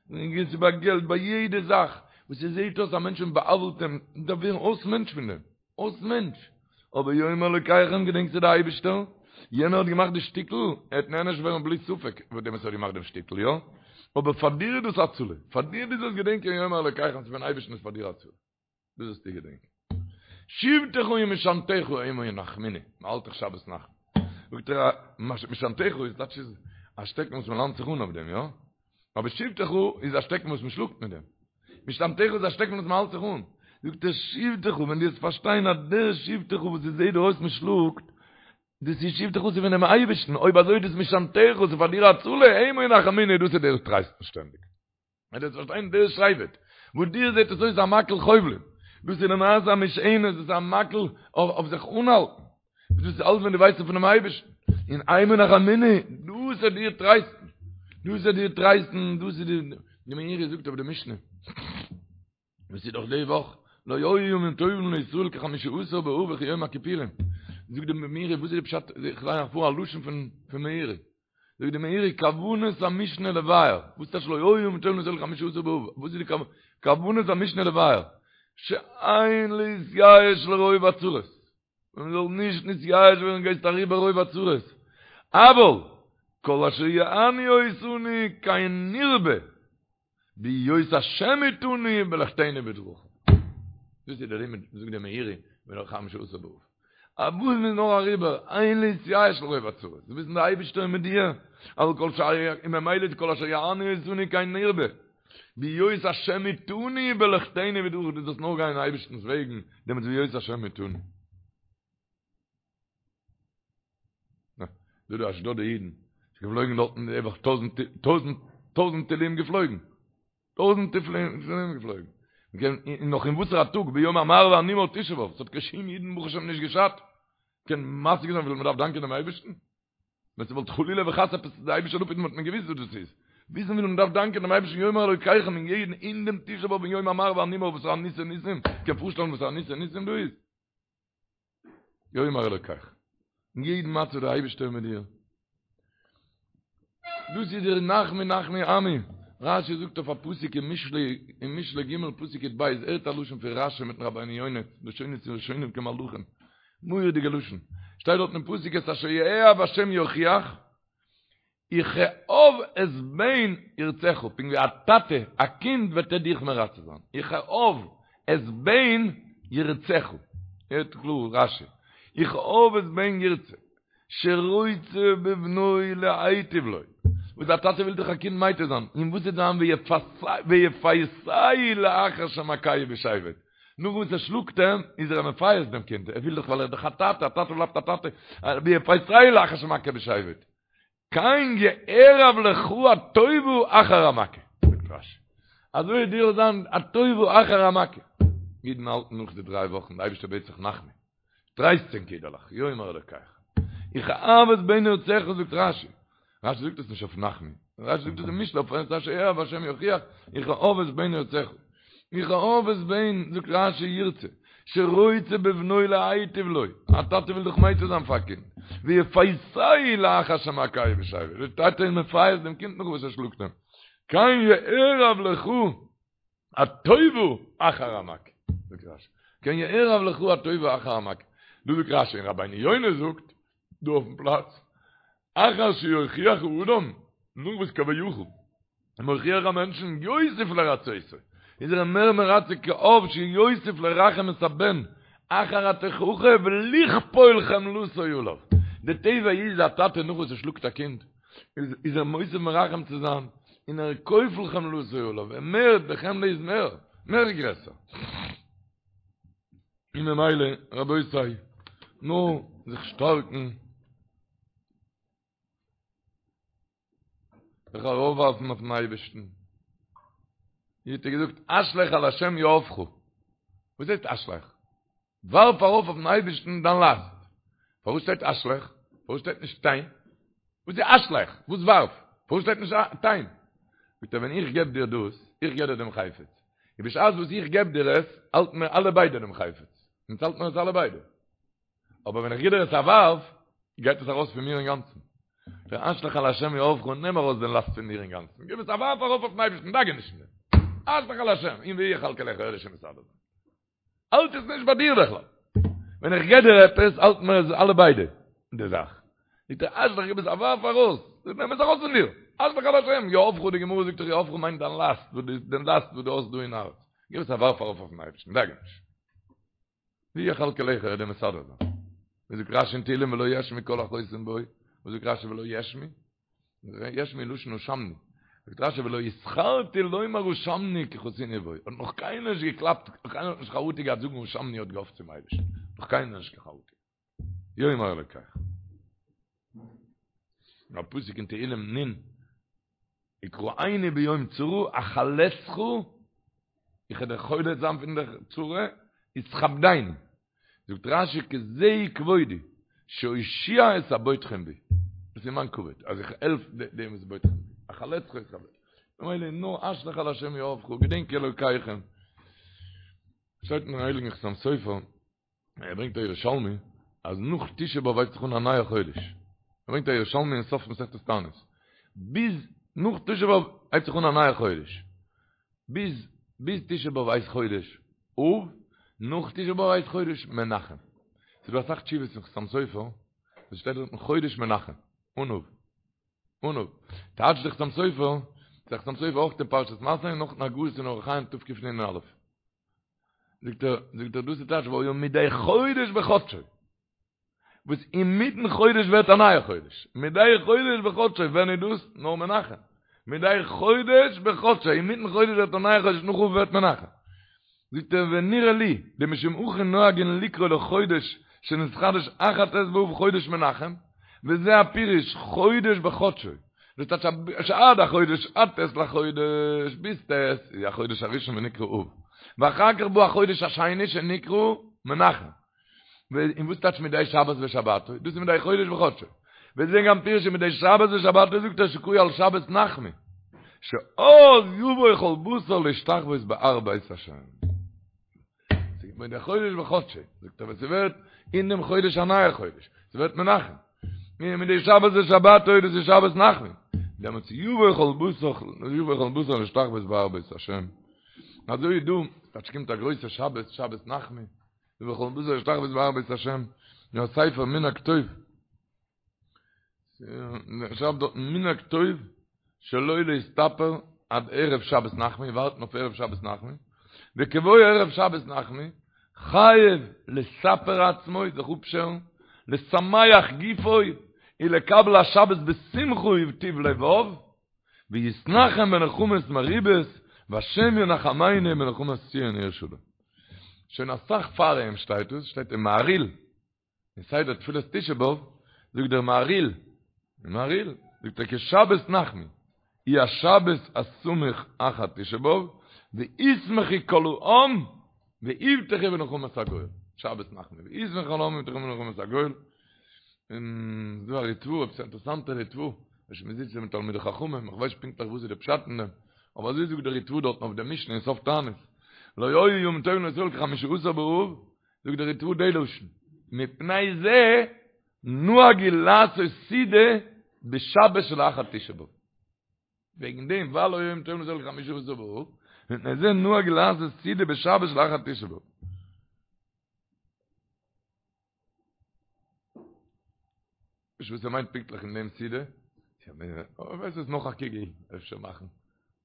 ס'איז ביי געלט ביי יעדע זאך וואס עס זעט אויס א מענטש און בא'עוול'ט אים, דארף ווערן אויס מענטש פון דעם. אויס מענטש. אבער יאמר אלוקיכם געדענקסטו די אייבישטער? יענער האט געמאכט די שטיקל, ער וועט נענש ווערן בלי ספק פאר דעם וואס ער האט געמאכט דעם שטיקל, יא? אבער פאר דיר איז דאס הצלה. פאר דיר דו זאלסט געדענקען יאמר אלוקיכם ס'איז פון אייבישטן איז פאר דיר הצלה. דאס זאלסטו געדענקען. שבטך ומשענתך המה ינחמוני, מען האלט דאך שבת נחמו. זאגט ער, משענתך איז טייטש איז א שטעקן וואס מען לאנט זיך אן אויף דעם, יא? אבער שבטך איז א שטעקן וואס מען שלאגט מיט דעם. משענתך איז א שטעקן וואס מען האלט זיך אן. זאגט ער, שבטך, ווען דו וועסט פארשטיין אז דער שבטך וואס עס זעט דיר אויס מען שלאגט, דאס איז שבטך איז פונעם אייבערשטן, אויב אזוי איז דאס משענתך, ס'איז פאר דיר הצלה, המה ינחמוני, דאס וועט דיר טרייסטן שטענדיג. ווען דו וועסט פארשטיין דער שבט, וואס דיר זעט עס אויס א מקל חובלים, דאס איז למעשה א משענת, דאס איז א מקל אויף זיך אנהאלטן, דאס איז אלעס ווען דו ווייסט פונעם אייבערשטן, און המה ינחמוני, דאס וועט דיר טרייסטן, דאס וועט דיר טרייסטן, דאס איז די, די מאירי זאגט אויף די משנה, וואס איז דאך די וואך, לא היו ימים טובים לישראל כחמישה עשר באב וכיום הכיפורים, זאגט די מאירי, וואס איז די פשט, איך ליין אייך פאר א לשון פון מאירי, זאגט די מאירי כוונת המשנה לבאר, וואס טייטש לא היו ימים טובים לישראל כחמישה עשר באב, וואס איז די כוונת המשנה לבאר, שאין להתייאש לרוב הצרות, מען זאל נישט נתייאש ווערן גייסט אריבער רוב הצרות, אבל כל אשר יענו אותנו כן נרבה, בהיות השם איתנו בלכתנו בדרכיו. דאס איז דער לימוד, זאגט דער מאירי, פון חמשה עשר באב. אז וואס מ'איז נאר אריבער, אין להתייאש לרוב הצרות. דו וויסן דער אייבערשטער איז מיט דיר, אבל כל אשר, און ממילא איז כל אשר יענו אותנו כן נרבה. בהיות השם איתנו בלכתנו בדרכיו, דו זאלסט נאר גיין אין אייבערשטנ'ס וועגן, דעמאלטס בהיות השם איתנו. דא די אשדוד'ע אידן, ס'איז געפלויגן דארטן די וואך טויזנט טויזנט טויזנט טילים געפלויגן, טויזנט טילים געפלויגן, מ'קען און נאך אין וואסערע א טאג ביום המר והנמהר תשעה באב, ס'האט קיין שום אידן ברוך השם נישט געשאדט, קען משיג זיין וויפיל מ'דארף דאנקען דעם אייבערשטן? ווען ס'וואלט חלילה וחס עפעס די אייבערשטער זאל אפהיטן וואלט מען געוויסט וואס דאס איז, וויסן וויפיל מ'דארף דאנקען דעם אייבערשטן יאמר אלוקיכם אין יעדן אין דעם תשעה באב אין יום המר והנמהר וואס א ניסי ניסים, קען פארשטעלן וואס א ניסי ניסים דא איז? יאמר אלוקיך. אין יעדן מצב דער אייבערשטער מיט דיר. דאס איז דער נחמו נחמו עמי. רשי זאגט אויף א פסוק אין משלי, אין משלי ג' פסוק יב, הערט א לשון פון רשי מיטן רבינו יונה, לשונות ראשונים כמלאכים. מורא'דיגע לשון. שטייט דארט אין פסוק את אשר יאהב השם יוכיח, וכאב את בן ירצך, פונקט ווי א טאטע א קינד וועט ער דיך מרצה זיין, וכאב את בן ירצך, הערט קלאר רשי, וכאב את בן ירצה, שרוצה בבנו להיטיב לו, וואס א טאטע וויל דאך א קינד מייטיב זיין, און וואס וועט זיין ויפייסהו לאחר שמכהו בשבט, נאך וואס ער שלאגט אים, איז ער מפייס דעם קינד, ער וויל דאך ווייל ער איז דאך א טאטע, א טאטע בלייבט א טאטע, ויפייסהו לאחר שמכהו בשבט. כן יערב לך הטובה אחר המכה, זאגט רשי. אזוי וועט דיר זיין הטובה אחר המכה. אידן האלטן נאך די דריי וואכן, די אייבערשטער בעט זיך נחמו, טרייסט ענק אידעלעך, יאמר אלקיכם. וכאב את בן ירצך זאגט רשי. רשי זאגט עס נישט אויף נחמו. רשי זאגט עס אין משלי אויף את אשר יאהב השם יוכיח, וכאב את בן ירצך. וכאב את בן, זאגט רשי ירצה, שרוצה בבנו להיטיב לו, א טאטע וויל דאך מייטיב זיין פאר א קינד, ויפייסהו לאחר שמכהו בשבט, די טאטע איז מפייס דעם קינד נאך וואס ער שלאגט אים, כן יערב לך הטובה אחר המכה, זאגט רשי, כן יערב לך הטובה אחר המכה, דא זאגט רשי און רבינו יונה זאגט דא אויפן פלאץ, אחר שיוכיח האדם, נאך וואס כביכול איז מוכיח א מענטשן יוסיף לרצותו, איז ער אים מער מרצה כאב שיוסיף לרחם את הבן אחר התוכחה ולכפול חמלתו עליו. די טבע איז א טאטע נאך וואס ער שלאגט א קינד איז ער מוסיף מרחם צו זיין און ער כופל חמלתו עליו, ער מערט, די חמלה איז מער, מער גרעסער. און ממילא רבותי, נאר זיך שטארקן. זיך ארויפווארפן אויפן אייבערשטן. ווי האט ער געזאגט, השלך על השם יהבך. וואס הייסט השלך? ווארף ארויף אויפן אייבערשטן דיין לאסט. פארוואס שטייט השלך? פארוואס שטייט נישט תן? וואס איז השלך? וואס ווארף? פארוואס שטייט נישט תן? זאגט ער, ווען איך געב דיר דאס, איך געב דיר דעם חפץ. און בשעת וואס איך געב דיר עס, האלטן מיר אלע ביידע דעם חפץ. אונז האלטן מיר עס אלע ביידע. אבער ווען איך גיב דיר עס א ווארף, גייט עס ארויס פון מיר אינגאנצן. דער השלך על השם יהבך, נעם ארויס דעם לאסט פון דיר אינגאנצן, גיב עס א ווארף ארויף אויפן אייבערשטן, דאגה נישט פון דעם. השלך על השם, און והוא יכלכלך, ער וועט שוין מסדר זיין. האלט עס נישט ביי דיר בכלל. ווען איך גיב דיר עפעס, האלטן מיר עס אלע ביידע, די זאך. זאגט ער, השלך, גיב עס א ווארף ארויס, נעם עס ארויס פון דיר. השלך על השם יהבך, די גמרא זאגט דאך יהבך מיינט דיין לאסט, דעם לאסט וואס דו האסט דא אין הארץ. גיב עס א ווארף ארויף אויפן אייבערשטן, דאגה נישט. והוא יכלכלך ער וועט דיר מסדר זיין. ווי זאגט רשי אין תהילים ולא יאשמו כל החוסים בו, וואס זאגט רשי ולא יאשמו? יאשמו לשון אשמנו. זאגט רשי ולא יתחרטו לומר אשמנו כי חסינו בו. האט נאך קיינער נישט געקלאפט, קיינער האט נישט חרטה געהאט זאגן אשמנו האט געהאפט צום אייבערשטן. נאך קיינער נישט קיין חרטה. יאמר אלקיך. א פסוק אין תהילים נ' יקראני ביום צרה אחלצך, איך וועל דיך חולץ זיין פון דער צרה, ותכבדני. זאגט רשי כי זה כבודי, שאושיע את הבוטחים בי. דאס איז מיין כבוד, אז איך העלף דעם וואס בוטחים בי. אחלצך ותכבדני. ממילא נאר השלך על השם יהבך, געדענק אלוקיכם. שטייט אין הייליגן חתם סופר, ער ברענגט א ירושלמי אז נאך תשעה באב הייבט זיך אן א נייע חודש, ער ברענגט א ירושלמי אין סוף מסכת תענית, ביז נאך תשעה באב הייבט זיך אן א נייע חודש, ביז ביז תשעה באב הייסט חודש אב, נאך תשעה באב הייסט חודש מנחם. ס'איז דא אסאך תשובות אין חתם סופר וואס שטייט דארטן חודש מנחם, אן אב. אן אב. טייטשט דער חתם סופר, דער חתם סופר אויך אין פרשת מסעי און נאך אין הגהות אין אורח חיים תקנ"א. זאגט ער, זאגט ער דאס איז טייטש והיה מדי חודש בחדשו, וואס אינמיטן חודש ווערט א נייע חודש, מדי חודש בחדשו, ווען איז דאס? נאר מנחם, מדי חודש בחדשו, אינמיטן חודש ווערט א נייע חודש, נאך אב ווערט מנחם. זאגט ער ונראה לי, דמשום הכי נוהגין לקרוא לחודש שנתחדש אחר ט' באב חודש מנחם, וזה הפירוש חודש בחדשו, דאס טייטש שעד החודש עד ט' לחודש, ביז ט' איז החודש הראשון ונקרא אב, ואחר כך בא החודש השני שנקרא מנחם. און וואס טייטש מדי שבת בשבתו? דאס איז מדי חודש בחודשו. וזה גם פירוש מדי שבת בשבתו זאגט ער שקרוי על שבת נחמו, שאז יבוא כל בשר להשתחוות בהר בית השם. מדי חודש בחודשו, זאגט ער ווען ס'ווערט אין דעם חודש א נייער חודש, ס'ווערט מנחם. מדי שבת בשבתו דאס איז שבת נחמו. דעמאלטס יבוא כל בשר, יבוא כל בשר להשתחוות בהר בית השם. אזוי איז דא, טייטש קומט א גרויסע שבת, שבת נחמו, יבוא כל בשר להשתחוות בהר בית השם, יא ספר מנהג טוב. שרייבט דארט מנהג טוב שלא להסתפר עד ערב שבת נחמו, ווארטן אויף ערב שבת נחמו, וכבוא ערב שבת נחמו, חייב לספר עצמו, זיך אפשערן, לשמח גופו, ולקבל השבת בשמחה ובטוב לבב, ויתנחם בנחמות מרובות, והשם ינחמנו בנחמת ציון עיר שלום. שוין אסאך פאר איהם שטייט עס, שטייט אין מהריל, אין סדר תפילת תשעה באב, זאגט דער מהריל, מהריל, זאגט ער כי שבת נחמו היא השבת הסמוך אחר תשעה באב, וישמחו כל העם ויבטחו בנחמת הגואל. שבת נחמו וישמחו כל העם ויבטחו בנחמת הגואל. און ס'דא א ריטבא, עפעס א אינטערעסאנטע ריטבא, וואס מען זיצט מיט תלמידי חכמים, איך ווייס נישט פונקטליך וואס איז די פשט אין דעם, אבער אזוי זאגט דער ריטבא דארטן אויף די משנה אין סוף תענית, לא היו ימים טובים לישראל כחמישה עשר באב, זאגט דער ריטבא די לשון, מפני זה נהגו לעשות סעודה בשבת שלאחר תשעה באב. וועגן דעם ווייל לא היו ימים טובים לישראל כחמישה עשר באב, מפני זה נהגו לעשות סעודה בשבת שלאחר תשעה באב. נישט וואס ער מיינט פונקטליך אין דעם סעודה. אבער ווייסט וואס נאך א קוגל אפשר מאכן.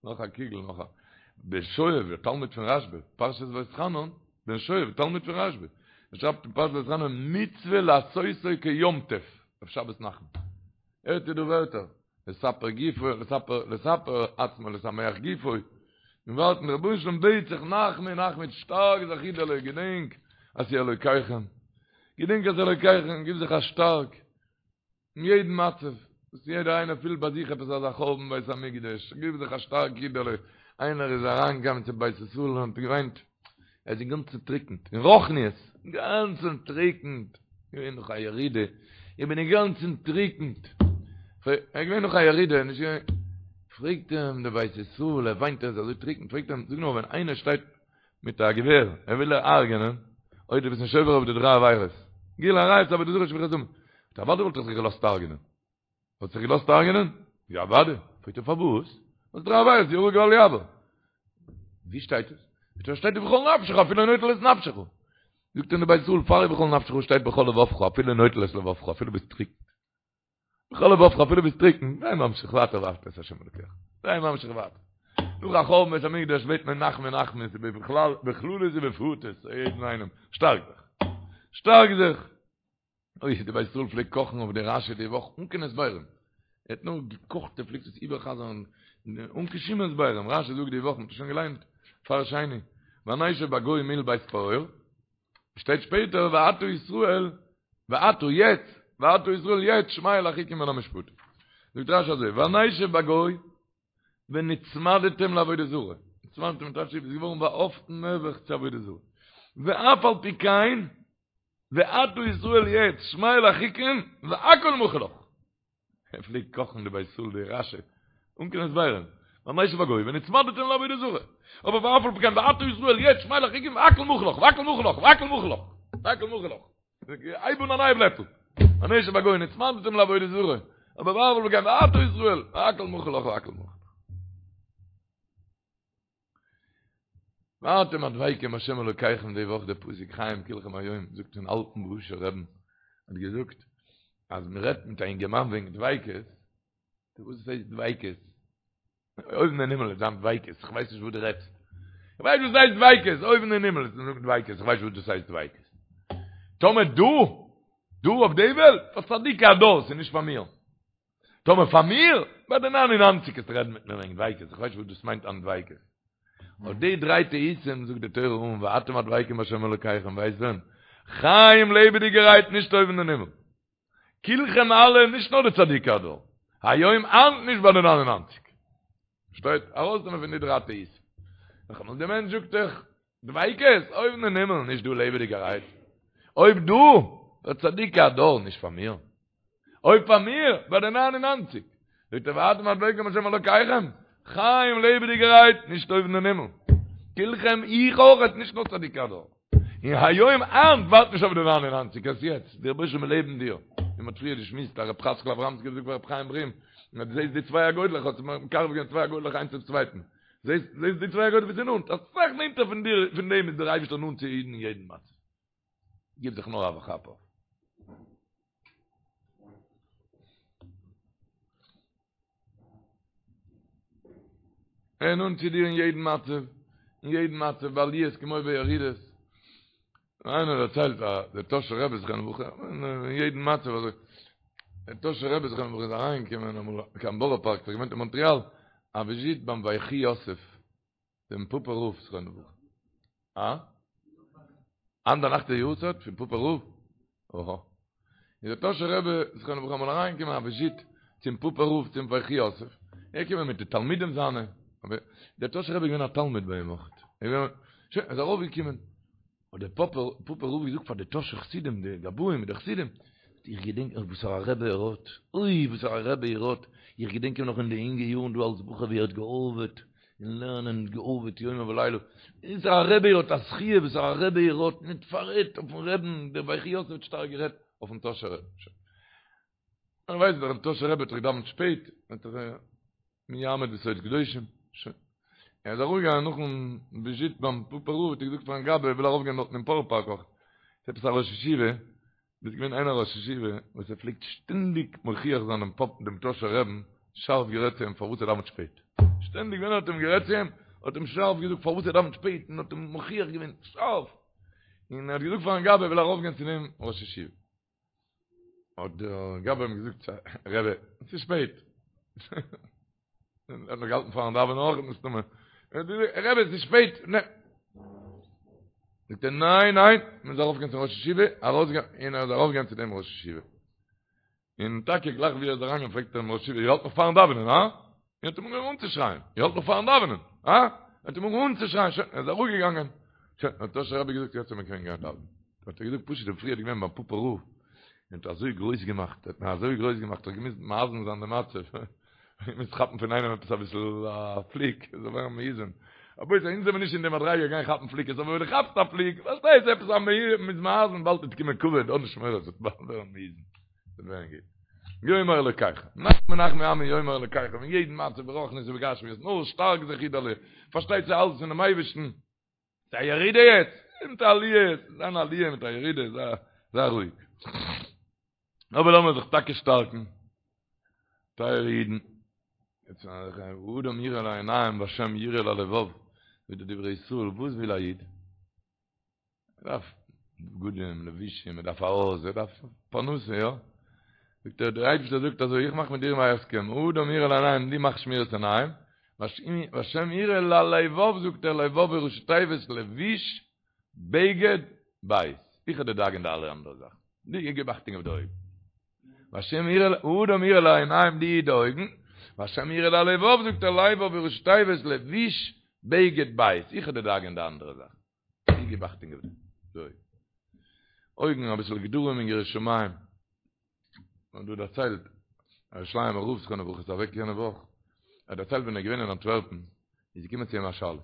נאך א קוגל נאך א. בן שואב, דער תלמיד פון רשב"א, פרשת ואתחנן, בן שואב, תלמיד פון רשב"א. ער שרייבט אין פרשת ואתחנן מצוה לעשותו כיום טוב, אויף שבת נחמו. הערט איר דא ווערטער? לספר גופו, לספר, לספר עצמו, לשמח גופו. און ווארטן, דער רבונו של עולם בעט זיך נחמו נחמו, שטארק זיך אידעלע, געדענק אז ס'איז אלוקיכם. געדענק אז אלוקיכם, גיב זיך א שטארק. אין יעדן מצב, וואס יעדער איינער פילט ביי זיך עפעס אזא חורבן בית המקדש, גיב זיך א שטארק אידעלע. איינער איז אריינגעקומען צום בית ישראל און האט געוויינט, ער איז אינגאנצן טריקנט, אין רוחניות, אינגאנצן טריקנט, געווען נאך א ירידה, איך בין אינגאנצן טריקנט, ער איז געווען נאך א ירידה, נישט געווען, פרעגט אים דער בית ישראל, ער וויינט ער איז אזוי טריקנט, פרעגט אים, זאג נאר, ווען איינער שטייט מיט א געווער, ער וויל דיר הרג'ענען, אויב דו ביסט נישט עובר אויף די דריי עבירות, גילוי עריות, עבודה זרה, שפיכות דמים, אוודאי וואלט איך זיך געלאזט הרג'ענען. האט זיך געלאזט הרג'נען? יא אוודאי. פרעגט ער פארוואס? ווייל דריי עבירות יהרג ואל יעבור. ווי שטייט עס? זאגט ער שטייט ובכל נפשך אפילו נוטל את נפשך. זאגט אים דער בית ישראל פאר ובכל נפשך שטייט בכל לבבך אפילו נוטל את לבבך אפילו ביסט טריקן. בכל לבבך אפילו ביסט טריקן. זיי ממשיך ווייטער ואהבת את השם אלוקיך. זיי ממשיך ווייטער. נאך א חורבן בית המקדש בעט מען נחמו נחמו בכלל בכללות ובפרטות יעדן איינעם שטארק זיך. שטארק זיך. אוי, די בית ישראל פלעגט קאכן אויף די רשי די וואך אן קיין הסברים. ער האט נאר געקאכט, ער פלעגט עס איבערחזר'ן אן קיין שום הסברים. רשי זאגט די וואך, מ'האט עס שוין געליינט פאר שני, ונשב בגיא מול בית פעור, שטייט שפעטער ועתה ישראל, ועתה יעצט, ועתה ישראל יעצט שמע אל החוקים ואל המשפטים. זאגט רשי אזוי, ונשב בגיא ונצמדתם לעבודה זרה, נצמדתם טייטש איז געווארן באהאפטן נעבעך צו עבודה זרה. ואף על פי כן, ועתה ישראל יעצט שמע אל החוקים והכל מחול לך. ער פלעגט קאכן די בית ישראל די רשי אן קיין הסברים. ונשב בגיא ונצמדתם לעבודה זרה. אבער ואף על פי כן ועתה ישראל יעצט שמע אל החוקים והכל מחול לך והכל מחול לך והכל מחול לך והכל מחול לך. הייב אן א נייע בלעטל. ונשב בגיא ונצמדתם לעבודה זרה. אבער ואף על פי כן ועתה ישראל והכל מחול לך והכל מחול לך. ואתם הדבקים בהשם אלוקיכם די וואך די פסוק חיים כלכם היום זאגט פון אלטן בוהושער רבי'ן האט געזאגט אז מען רעדט מיט א אינגערמאן וועגן דביקות וואס הייסט דביקות אויבן אין הימל איז זיין דביקות איך ווייס נישט וואס דו רעדסט איך ווייס וואס הייסט דביקות אויבן אין הימל איז זאגט דביקות איך ווייס וואס דאס הייסט דביקות טאמער דא דא אויף די וועלט פאר צדיקי הדור ס'איז נישט פאר מיר טאמער פאר מיר, ביי די ניין און ניינציג קענסטו רעדן מיט מיר וועגן דביקות, איך ווייס נישט וואס דאס מיינט אן דביקות. אויף די דריי טעותים זאגט די תורה אן ואתם הדבקים בהשם אלוקיכם, ווייסט ווען? חיים לעבעדיגערהייט נישט אויבן אין הימל. כולכם אלע, נישט נאר די צדיקי הדור. היום היינט נישט ביי די ניין און ניינציג. שטייט, ארויסנעמען פון די דריי טעותים. נאכאמאל, די מענטש זאגט דאך, דביקות, אויבן אין הימל, נישט דא לעבעדיגערהייט. אויב דא, פאר צדיקי הדור, נישט פאר מיר. אויב פאר מיר, ביי די ניין און ניינציג. זאגט ער ואתם הדבקים בהשם אלוקיכם, חיים לעבעדיגערהייט, נישט אויבן אין הימל. כולכם איך אויכעט, נישט נאר צדיקי הדור. און היום היינט ווארט נישט אויף די ניין און ניינציג, עס יעצט, דער רבוש"ע לעבן דיר. ווי מ'האט פריער געשמועסט, אז רב חצקל אברמסקי האט געזאגט פאר רב חיים ברים, אז דו זעסט די צוויי אגודלעך, האט מקרב געווען צוויי אגודלעך איינס צום צווייטן. זעסט זעסט די צוויי אגודלעך ווי ס'איז נאנט, אסאך נענטער פון דיר, פון דעם איז דער אייבערשטער נאנט צו אידן אין יעדן מצב. גיב זיך נאר א כאפ אויף. ער איז נאנט צו דיר אין יעדן מצב, אין יעדן מצב, בעליות כמו בירידות. איינער דערציילט אז דער טאהשער רבי זכרונו לברכה, אין יעדן מצב אזוי, דער טאהשער רבי זכרונו לברכה איז אריינגעקומען אמאל קיין בארא פארק, ער האט געוואוינט אין מאנטריאל, א וויזיט ביים ויחי יוסף, דעם פאפא רב זכרונו לברכה. אה? היינט ביינאכט איז יארצייט פון פאפא רב? אהא. איז דער טאהשער רבי זכרונו לברכה אמאל אריינגעקומען א וויזיט. צום פאפער רב צום ויחי יוסף, ער איז געקומען מיט די תלמידים זיינע, אבער דער טאהשער רבי איז געווען א תלמיד ביי אים אויך, שוין, ער איז ארויף געקומען, האט דער פאפער פאפער רב געזאגט פאר די טאהשער חסידים, די גבאים מיט די חסידים, איך געדענק נאך וואסארא רבי ער האט, אוי וואסארא רבי ער האט, איך געדענק אים נאך אין די אינגע יארן דא אלס בחור ווי ער האט געארבעט אין לערנען, געארבעט יומם ולילה, וואסארא רבי ער האט א זכיה וואסארא רבי ער האט, מען האט פאררעדט אויפן רעבן, דער ויחי יוסף האט שטארק גערעדט אויפן טאהשער רבי. מען ווייסט דאך דער טאהשער רבי האט דאך געדאווענט שפעט, האט דאך מי יעמוד בסוד קדושים, שוין. ער איז ארויפגעגאנגען נאכן וויזיט ביים פאפער רב, האט ער געזאגט פארן גבאי ער וויל ארויפגיין דארטן אין בארא פארק אויך, ס'איז עפעס א ראש ישיבה, דאס איז געווען איינער א ראש ישיבה וואס ער פלעגט שטענדיג מוכיח זיין דעם פאפ דעם טאהשער רעבן, שארף גערעדט צו אים פארוואס ער דאווענט שפעט, שטענדיג ווען ער האט אים גערעדט צו אים, האט אים שארף געזאגט פארוואס ער דאווענט שפעט און האט אים מוכיח געווען שארף, און ער האט געזאגט פארן גבאי ער וויל ארויפגיין צו דעם ראש ישיבה. האט דער גבאי אים געזאגט, רבי, עס איז שפעט. ער האט נאך געהאלטן פארן דאווענען אויך מסתמא. רבי, עס איז שפעט. זאגט ער, ניין, ניין, מען מוז ארויפגיין צום ראש ישיבה, ארויסגיין, און ער איז ארויפגעגאנגען צו דעם ראש ישיבה. און טאקע גלייך ווי ער איז אריינגעגאנגען פרעגט ער דעם ראש ישיבה, איר האלט נאך פארן דאווענען, הא? און האט אים אנגעהויבן אנצושרייען, איר האלט נאך פארן דאווענען, הא? ער האט אים אנגעהויבן אנצושרייען, שוין, ער איז אראפגעגאנגען, שוין, האט טאהשער רבי געזאגט, יעצט מען קען גיין דאווענען. האט ער געזאגט, פשוט דער פריער איז געווען ביים פאפא רב, און האט אזוי גרויס געמאכט, האט מען אזוי גרויס געמאכט, האט געמוזט מאזן זיין די מצב, געמוזט כאפן פון איינעם עפעס אביסל א פליק, זאל ווערן מאוזן. רבותי, אונז זעמיר נישט אין די מדריגה גיין כאפן פליקעס, אבער ווען דו כאפסט א פליק, פארשטייסט עפעס א מ'איז מאזן, באלד וועט קומען כבוד, האב נישט מורא, ס'וועט באלד ווערן מאוזן. ס'וועט ווערן גוט. יאמר אלוקיכם, נחמו נחמו עמי יאמר אלוקיכם, אין יעדן מצב ברוחניות ובגשמיות, נאר שטארק זיך אידעלע, פארשטייט זיך אלעס פונעם אייבערשטן, ס'איז א ירידה יעצט, מיט א עליה, ס'איז אן עליה מיט א ירידה, זיי זיי רואיג. אבער לאמיר זיך טאקע שטארקן, טייערע אידן, יעצט האדם יראה לעיניים והשם יראה ללבב, ווי די דברי ישראל, וואס וויל א איד? ער דארף בגדים, לבושים, ער דארף א הויז, ער דארף פרנסה, יא? זאגט ער, דער אייבערשטער זאגט אזוי, איך מאך מיט דיר א הסכם, האדם יראה לעיניים, דו מאך שמירת עיניים, והשם יראה ללבב, זאגט ער, לבב איז ראשי תיבות לבוש, בגד, בית. איך וועל דיר דאגה'ן די אלע אנדערע זאכן. דו גיב אכטונג אויף די אויגן. והשם יראה, האדם יראה לעיניים, דו היט די אויגן, והשם יראה ללבב, זאגט ער, לבב איז ראשי תיבות לבוש, בגד, בית. איך וועל דיר דאגה'ן די אנדערע זאכן. דו גיב אכטונג אויף די אויגן. אויגן אביסל גדרים אין יראת שמים. מ'האט דא דערציילט, א ירושלימ'ער רב זכרונו לברכה איז אוועק יענע וואך, ער האט דערציילט ווען ער איז געווען אין אנטווערפן, איז געקומען צו אים א שאלה.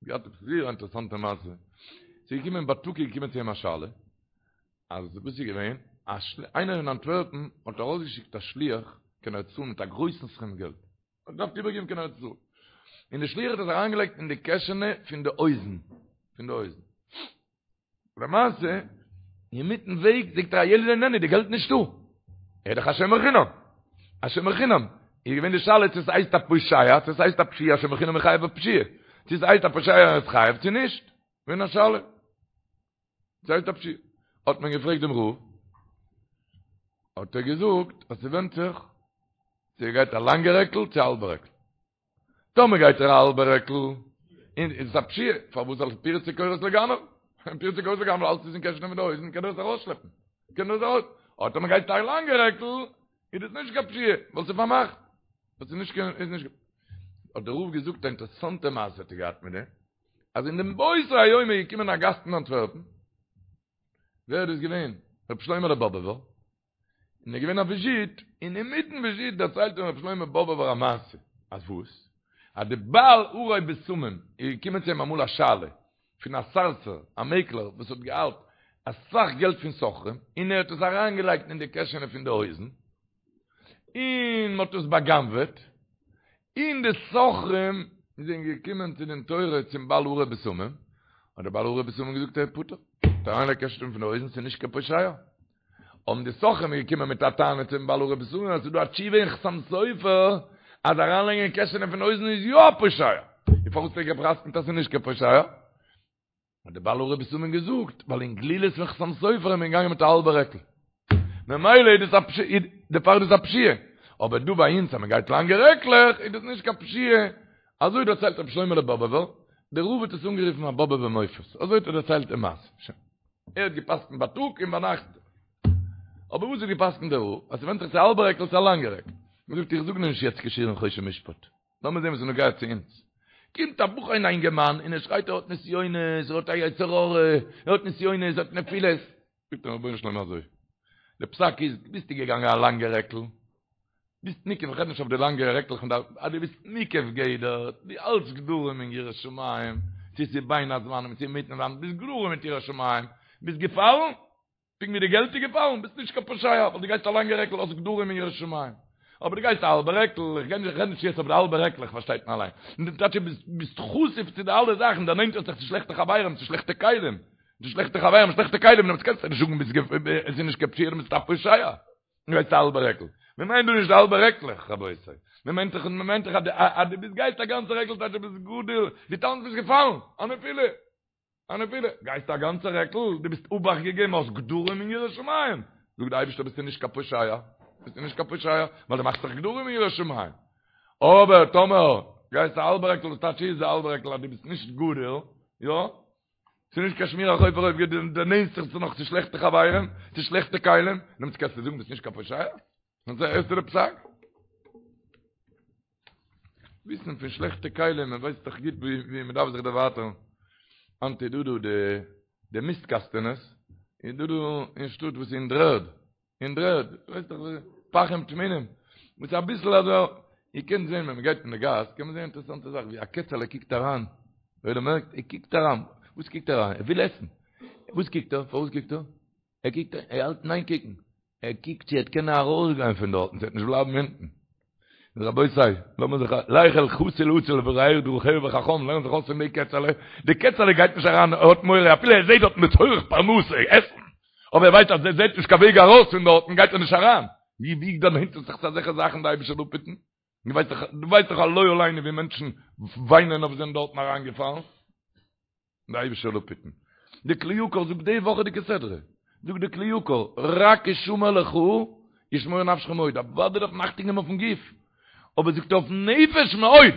געהאט עפעס זייער א אינטערעסאנטע מעשה. ס'איז געקומען בייטאג איז געקומען צו אים א שאלה, אז וואס איז געווען, א איינער אין אנטווערפן האט ארויסגעשיקט א שליח קיין ארץ ישראל מיט א גרויסן סכום געלט. האט געדארפט איבערגעבן קיין ארץ ישראל. און די שליח האט עס אריינגעלייגט אין די קעשענע פון די הויזן. פון די הויזן. למעשה, אינמיטן וועג זאגט ער הילד איננו, די געלט נישטא. ער איז דאך א שומר חינם. א שומר חינם. איז געווען די שאלה צו עס הייסט א פושע, צו עס הייסט א פשיעה, א שומר חינם איז חייב בפשיעה. צו עס הייסט א פושע ער איז חייב צו נישט. געווען א שאלה. ס'הייסט א פשיעה. האט מען געפרעגט דעם רב, האט ער געזאגט אז ס'ווענדט זיך צו ער גייט א לאנגע רעקל צו א האלבע רעקל. טאמער גייט ער א האלבע רעקל, איז עס א פשיעה, פארוואס ווייל פירצה קוראת לגנב? פירצה קוראת לגנב אלץ איז אין קעשענע פון די הויזן קען ער עס ארויסשלעפן. קען ער עס ארויס. אבער טאמער גייט א לאנגע רעקל, איז דאס נישט קיין פשיעה, ווייל ס'איז פארמאכט. ווייל ס'איז נישט קיין, איז נישט. האט דער רב געזאגט א אינטערעסאנטע מעשה האט ער געהאט מיט דעם. אז אין דעם באותו היום איז געקומען א גאסט אין אנטווערפן, ווער איז דאס געווען? רבי שלמה'לע באבעווער, און איז געווען א וויזיט, און אינמיטן וויזיט דערציילט אים רבי שלמה באבעווער א מעשה, אז וואס? אז די בעל הרי בשמים איז געקומען צו אים אמאל א שאלה פון א סארסער, א מעקלער וואס האט געהאלט אסאך געלט פון סוחרים, און ער האט עס אריינגעלייגט אין די קעשענע פון די הויזן, און מ'האט עס בא'גנב'עט, און די סוחרים זענען געקומען צו דין תורה צום בעל הרי בשמים, האט דער בעל הרי בשמים געזאגט ער איז פטור, האט אריינגעלייגט קעשענע פון די הויזן ס'איז נישט קיין פושע. האבן די סוחרים געקומען מיט א טענה צום בעל הרי בשמים אז ס'איז דא א תשובה אין חתם סופר אז אריינלייגן אין קעשענע פון הויזן איז יא א פושע, און פארוואס האט ער גע'פסק'נט אז ס'איז נישט קיין פושע? האט דער בעל הרי בשמים געזאגט, ווייל אין גלילות פון חתם סופר איז מען געגאנגען מיט א האלבע רעקל. ממילא איז דאס א פשיעה, דערפאר איז דאס א פשיעה. אבער דא ביי אונז אז מען גייט לאנגע רעקלעך איז דאס נישט קיין פשיעה. אזוי דערציילט רבי שלמה'לע באבעווער, דער רב האט עס אנגערופן א באבעווער מופת, אזוי האט ער דערציילט די מעשה. שוין. ער האט גע'פסק'נט בייטאג און ביינאכט. אבער וואס האט גע'פסק'נט דער רב? אז ס'ווענדט זיך צו א האלבע רעקל צו א לאנגע רעקל. מען זאגט איך זאג נישט יעצט קיין שיעור אין חושן משפט, לאמיר זען וואס איז נוגע צו אונז. קומט א בחור און א אינגערמאן און ער שרייט ער האט נסיונות, ער האט א יצר הרע, ער האט נסיונות, ער האט נפילות. זאגט אים רבונו של עולם אזוי, די פסק איז, ביסטו געגאנגען א לאנגע רעקל, ביסט מוקף, איך רעד נישט אויף די לאנגע רעקלעך פון די, אז דו ביסט מוקף גדר, דו האלטסט גדרים אין יראת שמים, צו ס'איז בין הזמנים צו אינמיטן זמן, ביסט גדרים מיט יראת שמים, ביסט געפאלן, פונקט ווי די געלט איז געפאלן, ביסט נישט קיין פושע, ווייל דו גייסט א לאנגע רעקל, האסט גדרים אין יראת שמים. אבער דו גייסט א האלבע רעקל, איך גיי נישט, איך רעד נישט יעצט אויף די האלבע רעקלעך, פארשטייט מען אליין. און די טייטש איז ביסט חשוף צו די אלע זאכן, דערנענטערסט זיך צו שלעכטע חברים, צו שלעכטע כלים. צו שלעכטע חברים, שלעכטע כלים, דעמאלטס קענסטו נישט זאגן ביסט עס איז נישט קיין פשיעה, דו ביסט א פושע. דו גייסט א האלבע רעקל. מען מיינט דא נישט די האלבע רעקלעך, רבותי. מען מיינט דאך, מען מיינט דאך אז דו ביסט גייסט א גאנצע רעקל טייטש דו ביסט גדור, דו טאנצט ביסט געפאלן, א נפילה. א נפילה, גייסט א גאנצע רעקל, דו ביסט אובאכט געגעבן, האסט גדרים אין יראת שמים, זאגט די אייבערשטער ביסטו נישט קיין פושע, ביסטו נישט קיין פושע, ווייל דו מאכסט זיך גדרים אין יראת שמים, אבער טאמער גייסט א האלבע רעקל, וואס טייטש איז די האלבע רעקל אז דו ביסט נישט גדור, יא, ס'איז נישט קיין שמירה אויף ארויף, דו דערנענטערסט זיך נאך צו שלעכטע חברים, צו שלעכטע כלים, דעמאלטס קענסטו זאגן ביסט נישט קיין פושע, און הערסטו די פסק? וויסן פון שלעכטע כלים, מען ווייסט דאך גוט ווי מען דארף זיך דערווייטערן. היינט איז דא דא די די מיסט קאסטענעס, איז דא דא אין שטאט וואס איז אין דר'ערד, אין דר'ערד, ווייסט דאך וואס פחים טמונים, וואס אביסל אזוי, איר קענט זען ווען מען גייט אין די גאס, קען מען זען אינטערעסאנטע זאך, ווי א קעצעלע קוקט אריין, ווער דער מערקט, ער קוקט אריין, וואס קוקט ער אריין? ער וויל עסן, וואס קוקט ער? פארוואס קוקט ער? ער קוקט, ער האלט אין איין קוקן, ער קוקט צו ער וועט קענען ארויסגיין פון דארטן, צו ער וועט נישט בלייבן אונטן. רבותי, לאמיר זיך, לך אל חתול עצל וראה דרכיה וחכם, לערן זיך אויס פון די קעצעלע, די קעצעלע גייט נישט אריין, ער האט מורא, אפילו ער זעט דארטן לצורך פרנסה, עסן, אבער ער ווייסט אז ער זעט נישט קיין וועג ארויס פון דארטן, גייט ער נישט אריין. ווי ווי דערנענטערט זיך צו אזעלכע זאכן די אייבישטער זאל אפהיטן? דו ווייסט דאך, דו ווייסט דאך לא עלינו ווי מענטשן וויינען אויף זענען דארטן אריינגעפאלן. די אייבישטער זאל אפהיטן. די כלי יקר זאגט די וואכעדיגע סדרה, זאגט די כלי יקר, רק השמר לך ושמור נפשך מאוד, אוודאי דארף מען אכטונג געבן אויפן גוף, אבער זאגט ער אויפן נפש מאוד,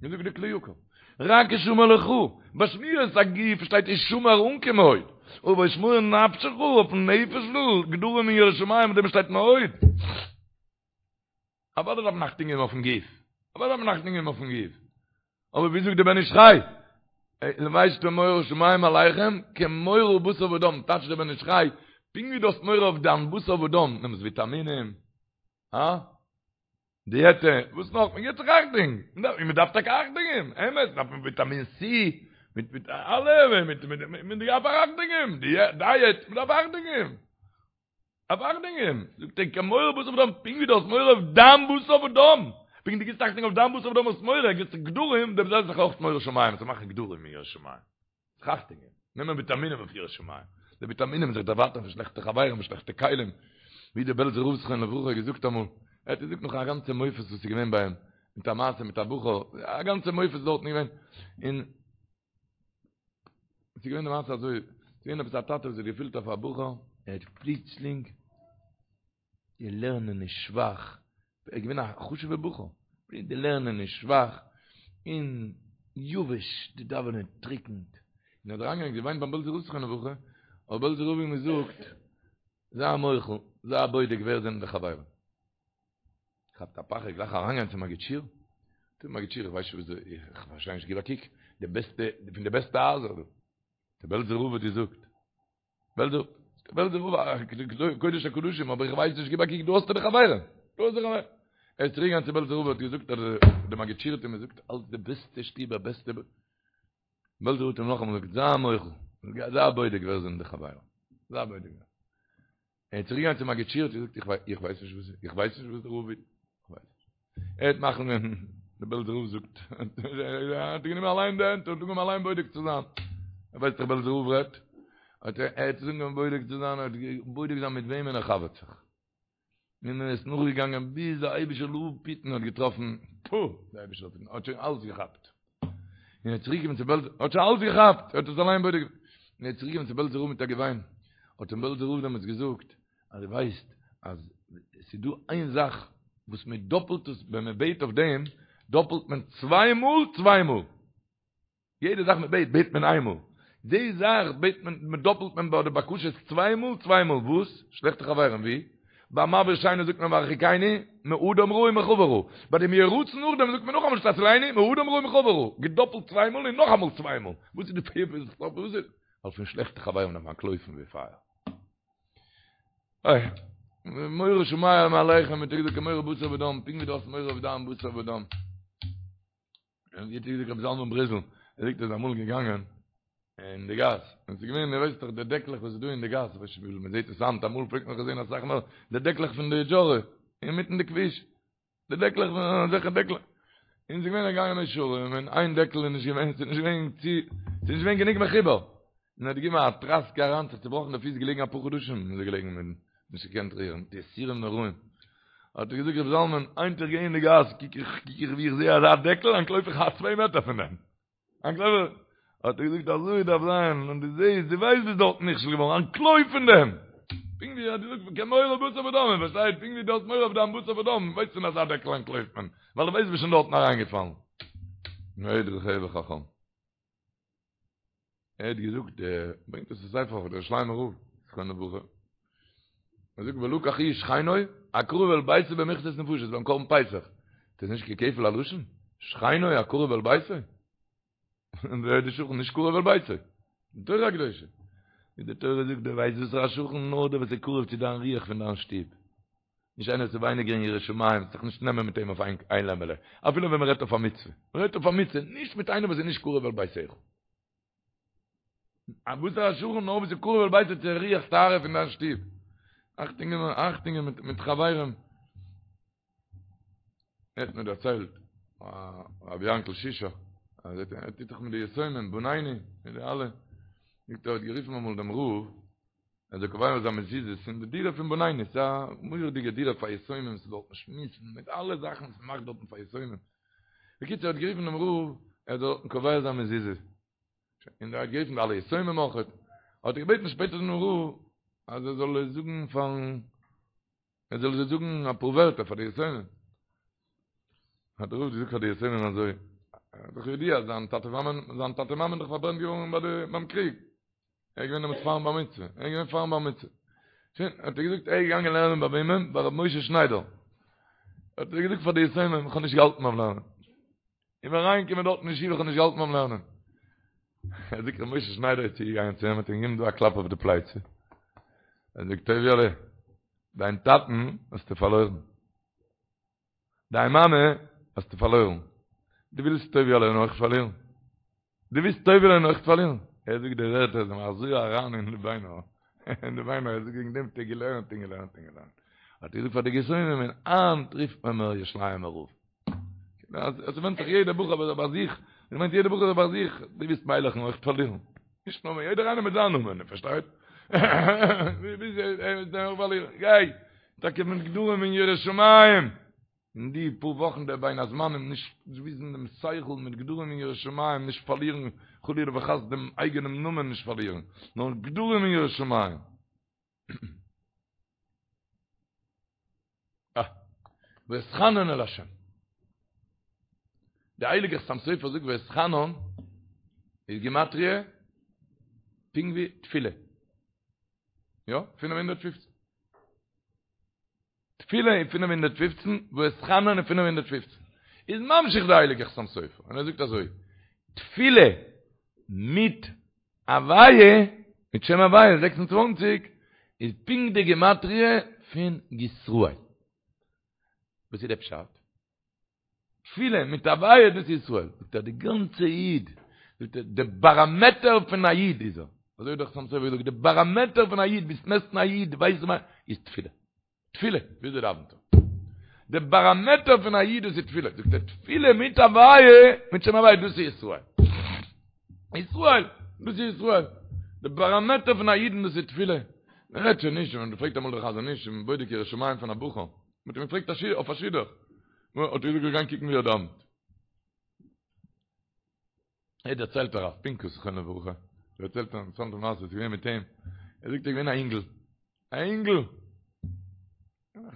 אזוי זאגט די כלי יקר, רק השמר לך, ביי שמירת הגוף שטייט השמר אן קיין מאוד, אבער ושמור נפשך אויפן נפש גדרים אין יראת שמים אויף דעם שטייט מאוד. אוודאי דארף מען אכטונג געבן אויפן גוף, אוודאי דארף מען אכטונג געבן אויפן גוף, אבער ווי זאגט דער בן איש חי, לבשתם מורא שמים עליכם כמורא בשר ודם, טייטשט דער בן איש חי, פונקט ווי דו האסט מורא אויף דיין בשר ודם, נעמסט וויטאמינען, הא? דיעטע, וואס נאך? מען גיבט זיך אכטונג, און מען דארף טאקע אכטונג געבן, אמת, דארף מען וויטאמין סי, מיט מיט אלע, מיט מיט מען דארף אכטונג געבן, דייעט, מען דארף אכטונג געבן. דארף אכטונג געבן, זאגט ער, כמורא בשר ודם, פונקט ווי דו האסט מורא אויף דיין בשר ודם, פונקט דו גיבסט אכטונג אויף דיין בשר ודם האסט מורא, גיבסט גדרים, דעם זעלבן זיך אויך מורא שמים, צו מאכן גדרים אין יראת שמים, זיך אכטונג געבן, נעמען וויטאמינען אויף יראת שמים, די וויטאמינען זיך דערווייטערן פון שלעכטע חברים און שלעכטע כלים, ווי דער בעלזער רב זכרונו לברכה האט געזאגט אמאל, ער האט געזאגט נאך א גאנצע מופת וואס איז געווען ביי אים, מיט א מעשה מיט א בחור, א גאנצע מופת דארטן געווען, און עס איז געווען די מעשה אזוי, עס איז געווען עפעס א טאטע וואס האט געפילט אויף א בחור, ער האט פלוצלינג, די לערנען איז שוואך, ער איז געווען א חשוב'ע בחור, די לערנען איז שוואך, און יבש, די דאווענען טריקנט, און ער האט אריינגעגאנגען געוויינט ביים בעלזער רב זכרונו לברכה, האט בעלזער רב אים געזאגט, זיי מוחל, זיי בודק ווער זענען די חברים. כאפט א פחד גלייך אריינגיין צום מגיד שיעור, צום מגיד שיעור איך ווייס נישט וואס איך פארשטיי נישט גיב א קוק, די בעסטע פון די בעסטע הייזער דא, דער בעלזער רב האט געזאגט, בעלזער בעלזער רב קודש הקדשים אבער איך ווייס נישט גיב א קוק דא האסטו די חברים, דא האסטו די חברים, ער איז צוריק געגאנגען צו בעלזער רב האט געזאגט אז דער מגיד שיעור האט אים געזאגט אלס די בעסטע שטיבער בעסטע, בעלזער רב האט אים נאכאמאל געזאגט זיי מוחל, זיי בודק ווער זענען די חברים, זיי בודק. ער איז צוריק געגאנגען צום מגיד שיעור האט געזאגט איך ווייס איך ווייס נישט וואס איך ווייס נישט וואס דער רב וויל איך ווייס נישט ער האט מאכן ווען דער בעלזער רב זאגט ער האט גענומען אליין די הענט און אנגעהויבן אליין בודק צו זיין ער ווייסט דאך בעלזער רב רעדט האט ער ער האט אנגעהויבן בודק צו זיין ער האט בודק זיין מיט וועמען ער חבר'ט זיך און ער איז נאכגעגאנגען ביז דער אייבישטער זאל אפהיטן האט געטראפן פו דער אייבישטער זאל אפהיטן האט שוין אלס געכאפט און ער איז צוריקגעקומען צו בעלז, האט שוין אלס געכאפט, ער האט עס אליין בודק געווען. און ער איז צוריקגעקומען צו בעלזער רב מיט א געוויין, האט אים בעלזער רב דעמאלטס געזאגט, אז דו ווייסט אז עס איז דא איין זאך וואס מען דאפלט עס, ווען מען בעט אויף דעם, דאפלט מען צוויי מאל צוויי מאל. יעדע זאך מען בעט, בעט מען איין מאל. די זאך בעט מען, מען דאפלט מען ביי די בקשות צוויי מאל צוויי מאל. וואס? שלעכטע חברים, ווי? ביי מעביר שינה זאגט מען והרחיקני מאדם רע ומחבר רע. ביי דעם יהי רצון נאכדעם זאגט מען נאכאמאל שתצילני מאדם רע ומחבר רע. געדאפלט צוויי מאל און נאכאמאל צוויי מאל. וואס איז די פירוש? וואס איז? ווייל פון שלעכטע חברים דארף מען אנטלויפן ווי פייער. אוי, מורא שמים עליכם, מיט די כמורא בשר ודם, פונקט ווי דו האסט מורא אויף דיין בשר ודם. און ווי האט געזאגט רבי זלמן בריזל, ער זאגט ער איז אמאל געגאנגען אין די גאס, און ס'איז געווען, איר ווייסט דאך די דעקלעך וואס איז דא אין די גאס, כ'ווייס נישט וויפיל מ'זעט עס היינט, אמאל פלעגט מען נאך זען אסאך מער, די דעקלעך פון די דזשארע, אינמיטן די כביש, די דעקלעך פון אזעלכע דעקלעך, און ס'איז געווען ער געגאנגען מאה שערים, און איין דעקל איז נישט געווען, ס'איז נישט געווען צו, ס'איז נישט געווען גענוג מחובר, און ער האט געגעבן א טראסקע אריין, זיך צובראכן די פיס, געלעגן אפאר חדשים איז ער געלעגן מיט נישט געקענט רירן, די יסורים נוראים. האט ער געזאגט רבי זלמן, היינט איך גיי אין די גאס, קוק איך, קוק איך ווי איך זעה אזא דעקל, אנטלויף איך א צוויי מעטער פון דעם. אנטלויף איך. האט ער געזאגט אזוי דארף זיין, און דו זעהסט, דו ווייסט ביסט דארטן נכשל געווארן, אנטלויף פון דעם! פונקט ווי ער האט געזאגט כמורא בשר ודם, איר פארשטייט, פונקט ווי דו האסט מורא אויף דיין בשר ודם, ווייסט פון אזא דעקל אנטלויפט מען, ווייל דו ווייסט ביסט שוין דארטן אריינגעפאלן. מאוד רחב וחכם. ער האט געזאגט, ער ברענגט עס אין ספר פון דער ירושלימער רב, זכרונו לברכה. ער זאגט ולקח איש שכנו הקרוב אל ביתו במכסת נפשות ביים קרבן פסח. דאס איז נישט קיין כפל הלשון? שכנו הקרוב אל ביתו? און ווער איז די שכן נישט קרוב אל ביתו? די תורה הקדושה. ווי די תורה זאגט, דו ווייסט וואס איז א שכן? נאר דער וואס איז קרוב צו דיין רוח פון דיין שטוב. נישט איינער וואס איז ווייניגער אין יראת שמים, זיך נישט נעמען מיט אים אויף איין לעמעלע, אפילו ווען מען רעדט אויף א מצוה, מען רעדט אויף א מצוה, נישט מיט איינעם וואס איז נישט קרוב אל ביתך. א וואס איז א שכן נאר וואס איז קרוב אל ביתו צו רוח טהרה פון דיין שטוב. אכטונג געבן, אכטונג געבן מיט מיט חברים. ער האט מיר דערציילט, רבי יענקל שישא, אז ער טוט דאך מיט די יתומים, בנינו, מיט די אלע, זאגט ער האט גערופן אמאל דעם רב, ער זאל קובע זיין מזוזות אין די דירה פון בנינו, ס'איז א מורא'דיגע דירה פאר יתומים, ס'איז דארטן שמועסן מיט אלע זאכן וואס מ'מאכט דארטן פאר יתומים. בקיצור, ער האט גערופן דעם רב, ער זאל דארטן קובע זיין מזוזה. און ער האט גערופן די אלע יתומים אויך. האט ער געבעטן שפעטער דעם רב, אז ער זאל זאגן פארן, ער זאל זיי זאגן אפאר ווערטער פאר די יתומים. האט דער רב געזאגט פאר די יתומים אזוי, איז דאך ידוע אז זיין טאטע מאמע, זיין טאטע מאמע איז דאך פארברענט געווארן ביי די, ביים קריג. ער איז געווען דעמאלטס פארן בר מצוה, ער איז געווען פארן בר מצוה. שוין, האט ער געזאגט, ער איז געגאנגען לערנען ביי וועמען? ביי רבי משה שניידער. האט ער געזאגט פאר די יתומים, איך האב נישט געהאלטן ביים לערנען. איך בין אריינגעקומען דארט אין ישיבה, איך האב נישט געהאלטן ביים לערנען. ער זאגט, רבי משה שניידער איז צוגעגאנגען צו אים, האט אים געגעבן דא א קלאפ אויף די פלייצע. ער זאגט, טוביה'לע, דיין טאטן האסטו פארלוירן. דיין מאמע האסטו פארלוירן. דו ווילסט טוביה'לען אויך פארלירן? דו ווילסט טוביה'לען אויך פארלירן? ער זאגט די ווערטער זענען אזוי אריין אין די ביינער, אין די ביינער, ער זאגט וועגן דעם האט ער געלערנט און געלערנט און געלערנט. האט ער געזאגט פאר די יתומים און היינט רופט מען מיר ירושלימ'ער רב. עס ווענדט זיך יעדער בחור ביי זיך, איך מיין יעדער בחור ביי זיך, דו ווילסט מיילעכן אויך פארלירן? נישט נאר מיר, יעדער איינער מיט זיין נאמען, פארשטייט? גיי, טאקע מיט גדרים אין יראת שמים, אין די פאר וואכן דער בין הזמנים, נישט וויסן דעם שכל מיט גדרים אין יראת שמים, נישט פארלירן חלילה וחס דעם אייגענעם נאמען נישט פארלירן, נאר גדרים אין יראת שמים. אה. ואתחנן אל השם. דער הייליגער חתם סופר זאגט ואתחנן איז גימטריא פונקט ווי תפילה. יא, 515. תפילה איז 515, ואתחנן איז 515. איז ממשיך דער הייליגער חתם סופר און ער זאגט אזוי, תפילה מיט הוויה, מיט שם הוויה 26, איז פונקט די גימטריא פון ישראל. וואס איז דער פשט? תפילה מיט הוויה דאס איז ישראל. זאגט ער די גאנצע איד, זאגט ער די באראמעטער פון א איד איז ער. אזוי האט דער חתם סופר געזאגט, די באראמעטער פון א איד, ווילסט מעסטן א איד, ווייסט וואס איז תפילה. תפילה, וויאזוי דאווענט ער? די באראמעטער פון א איד דאס איז תפילה, זאגט ער, תפילה מיט הוויה, מיט שם הוויה, דאס איז ישראל. ישראל, דאס איז ישראל. די באראמעטער פון א אידן דאס איז תפילה. מען רעדט שוין נישט, מען פרעגט אמאל דער חזון איש, מען בודק יראת שמים פון א בחור, מען האט אים געפרעגט אויף א שידוך, האט ער געזאגט גיין קוקן ווי ער דאווענט. ער דערציילט הרב פינקוס זכרונו לברכה, ער דערציילט א אינטערעסאנטע מעשה וואס איז געווען מיט אים, ער זאגט ער איז געווען א אינגל, א אינגל,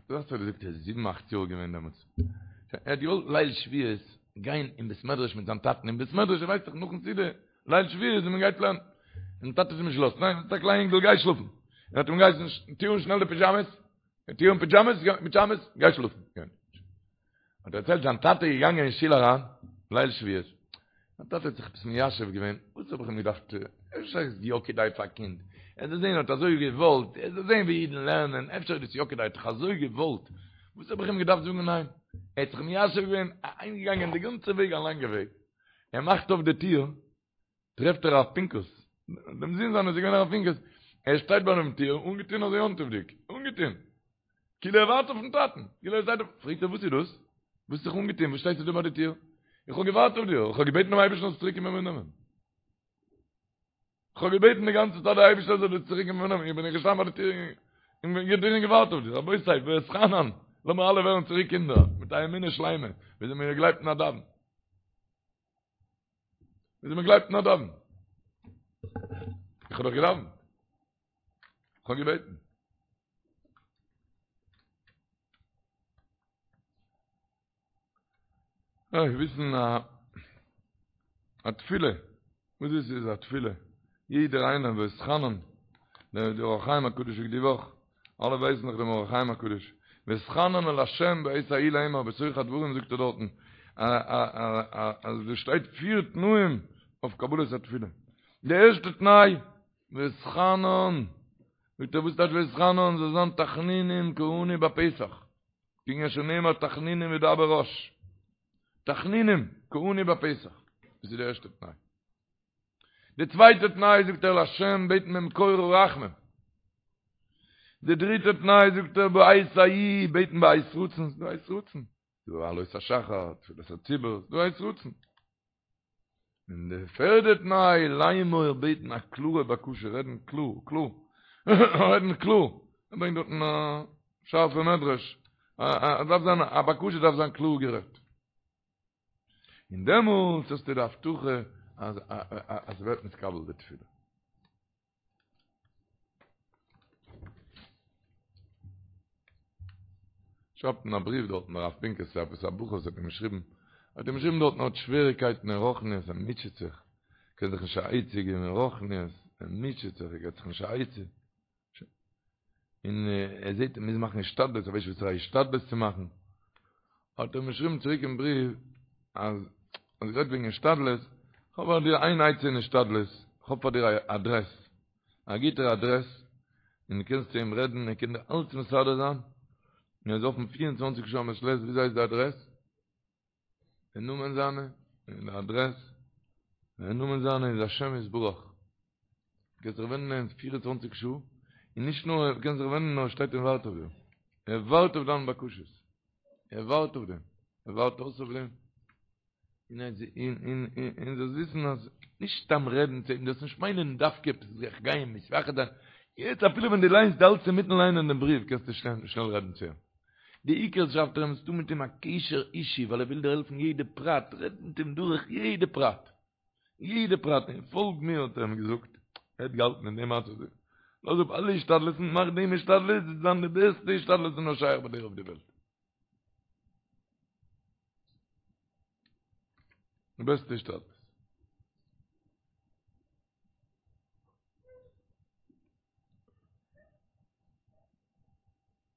דאס האט ער געזאגט ער איז זיבן אכט יאר געווען דעמאלטס, ער האט געוואלט ליל שבועות גיין אין בית מדרש מיט זיין טאטן אין בית מדרש, איר ווייסט דאך נאכן סעודה, ליל שבועות ווען מען גייט לערנען, און טאטע האט אים נישט געלאזט, ניין, ביסט א קליין אינגל גיי שלאפן, ער האט אים געהייסן טו אן שנעל די פידזשאמעס. טו אן פידזשאמעס, פידזשאמעס, גיי שלאפן. האט ער דערציילט זיין טאטע איז געגאנגען אין שול אריין, ליל שבועות. זיין טאטע האט זיך עפעס מיישב געווען, וואס האב איך אים געדארפט, אפשר איז יא כדאי פאר א קינד, ער זאל זען, ער האט אזוי געוואלט, ער זאל זען ווי אידן לערנען, אפשר איז דאס יא כדאי, ער האט דאך אזוי געוואלט, וואס האב איך אים געדארפט זאגן ניין? ער האט זיך מיישב געווען, אהיימגעגאנגען די גאנצע וועג א לאנגע וועג, ער מאכט אויף די טיר, טרעפט ער הרב פינקוס, דעם זון זיינער איז געווען הרב פינקוס, ער שטייט ביי דעם טיר אנגעטון אזוי יום טוב'דיג, אנגעטון, כאילו ער ווארט אויפן טאטן, כאילו ער שטייט אויף, פרעגט ער וואס איז דאס? וואס האסט זיך אנגעטון, וואס שטייסטו דא ביי די טיר? איך האב געווארט אויף דיר, איך האב געבעטן דעם אייבערשטן זאלסט צוריק קומען מיר נעמען. איך האב געבעטן די גאנצע צייט דער אייבערשטער זאל דיר צוריק קומען מיר נעמען, איך בין געשטאנען ביי די טיר און געווארט אויף דיר, רבותי, ואתחנן, לאמיר אלע ווערן צוריק קינדער, מיט א אמונה שלימה, וויאזוי מען גלייבט אין א דאווען. וויאזוי מען גלייבט אין א דאווען. איך האב דאך געדאווענט. איך האב געבעטן. איך וויסן א א תפילה. וואס דאס איז א תפילה? יעדער איינער ואתחנן. דער אור החיים הקדוש זאגט די וואך. אלע ווייסן דאך דעם אור החיים הקדוש, ואתחנן אל ה' בעת ההיא לאמר בתוך הדברים זאגט ער דארטן אז דא שטייט פיר תנאים אויף קבלת התפילה, די ערשטע תנאי ואתחנן, זאגט ער וואס טייטש ואתחנן זאל זיין תחנונים כעני בפתח, כענין שנאמר תחנונים ידבר רש, תחנונים כעני בפתח, דאס איז די ערשטע תנאי. די צווייטע תנאי זאגט ער להשם בעטן ממקור הרחמים. די דריטע תנאי זאגט ער בעת ההיא בעטן בעת רצון, ס'דא עת רצון, ס'דא עלות השחר, תפילת הציבור, ס'דא עת רצון. און די פערדע תנאי לאמור בעטן א קלארע בקשה, רעדן קלאר, קלאר, רעדן קלאר, ער ברענגט דארטן א שארפע מדרש, א דארף זיין א בקשה דארף זיין קלאר גערעדט. און דעמאלטס האסטו די הבטחה אז אז ס'ווערט נתקבל די תפילה. שרייבט אין א בריוו דארטן הרב פינקוס צו עפעס א בחור וואס האט אים געשריבן, האט אים געשריבן דארטן ער האט שוועריקייטן אין רוחניות ער מוטשעט זיך, קען זיך נישט א עצה געבן אין רוחניות, ער מוטשעט זיך ער געבט זיך נישט א עצה. און ער זעט ער מוז מאכן השתדלות, ער ווייסט נישט וואסערע השתדלות צו מאכן, האט ער אים געשריבן צוריק אין בריוו, אז אז גערעדט וועגן השתדלות, כ'האב פאר דיר איין עצה אין השתדלות, כ'האב פאר דיר א אדרעס, א גוטער אדרעס, און דו קענסט צו אים רעדן, ער קען דיר אלץ מסדר זיין, און ער איז אפן פיר און צוואנציג שעה א מעת לעת, וויאזוי הייסט די אדרעס? די נאמען זיינע און די אדרעס, די נאמען זיינע איז השם יתברך, קענסט זיך ווענדן אים פיר און צוואנציג שעה, און נישט נאר ער קען זיך ווענדן נאר ער שטייט און ווארט אויף דיר, ער ווארט אויף דיינע בקשות, ער ווארט אויף דעם, ער ווארט אויס אויף דעם, און און און זאלסט וויסן אז נישט סתם רעדן צו אים, דארפסט נישט מיינען דווקא עפעס זיך גיין מתייחד זיין, יעצט אפילו ווען דו ליינסט דו האלטסט אינמיטן ליינען דעם בריוו קענסטו שנעל רעדן צו אים. די עיקר שרייבט ער אים האסטו מיט אים א קשר אישי ווייל ער וויל דיר העלפן יעדע פרט, רעד מיט אים דורך יעדע פרט, יעדע פרט, און פאלג מיר האט ער אים געזאגט, ער האט געהאלטן אין דעם מצב, לאז אפ אלע השתדלות'ן, מאך דעם השתדלות, וועט זיין די בעסטע השתדלות וואס נאר שייך ביי דיר אויף די וועלט. די בעסטע השתדלות.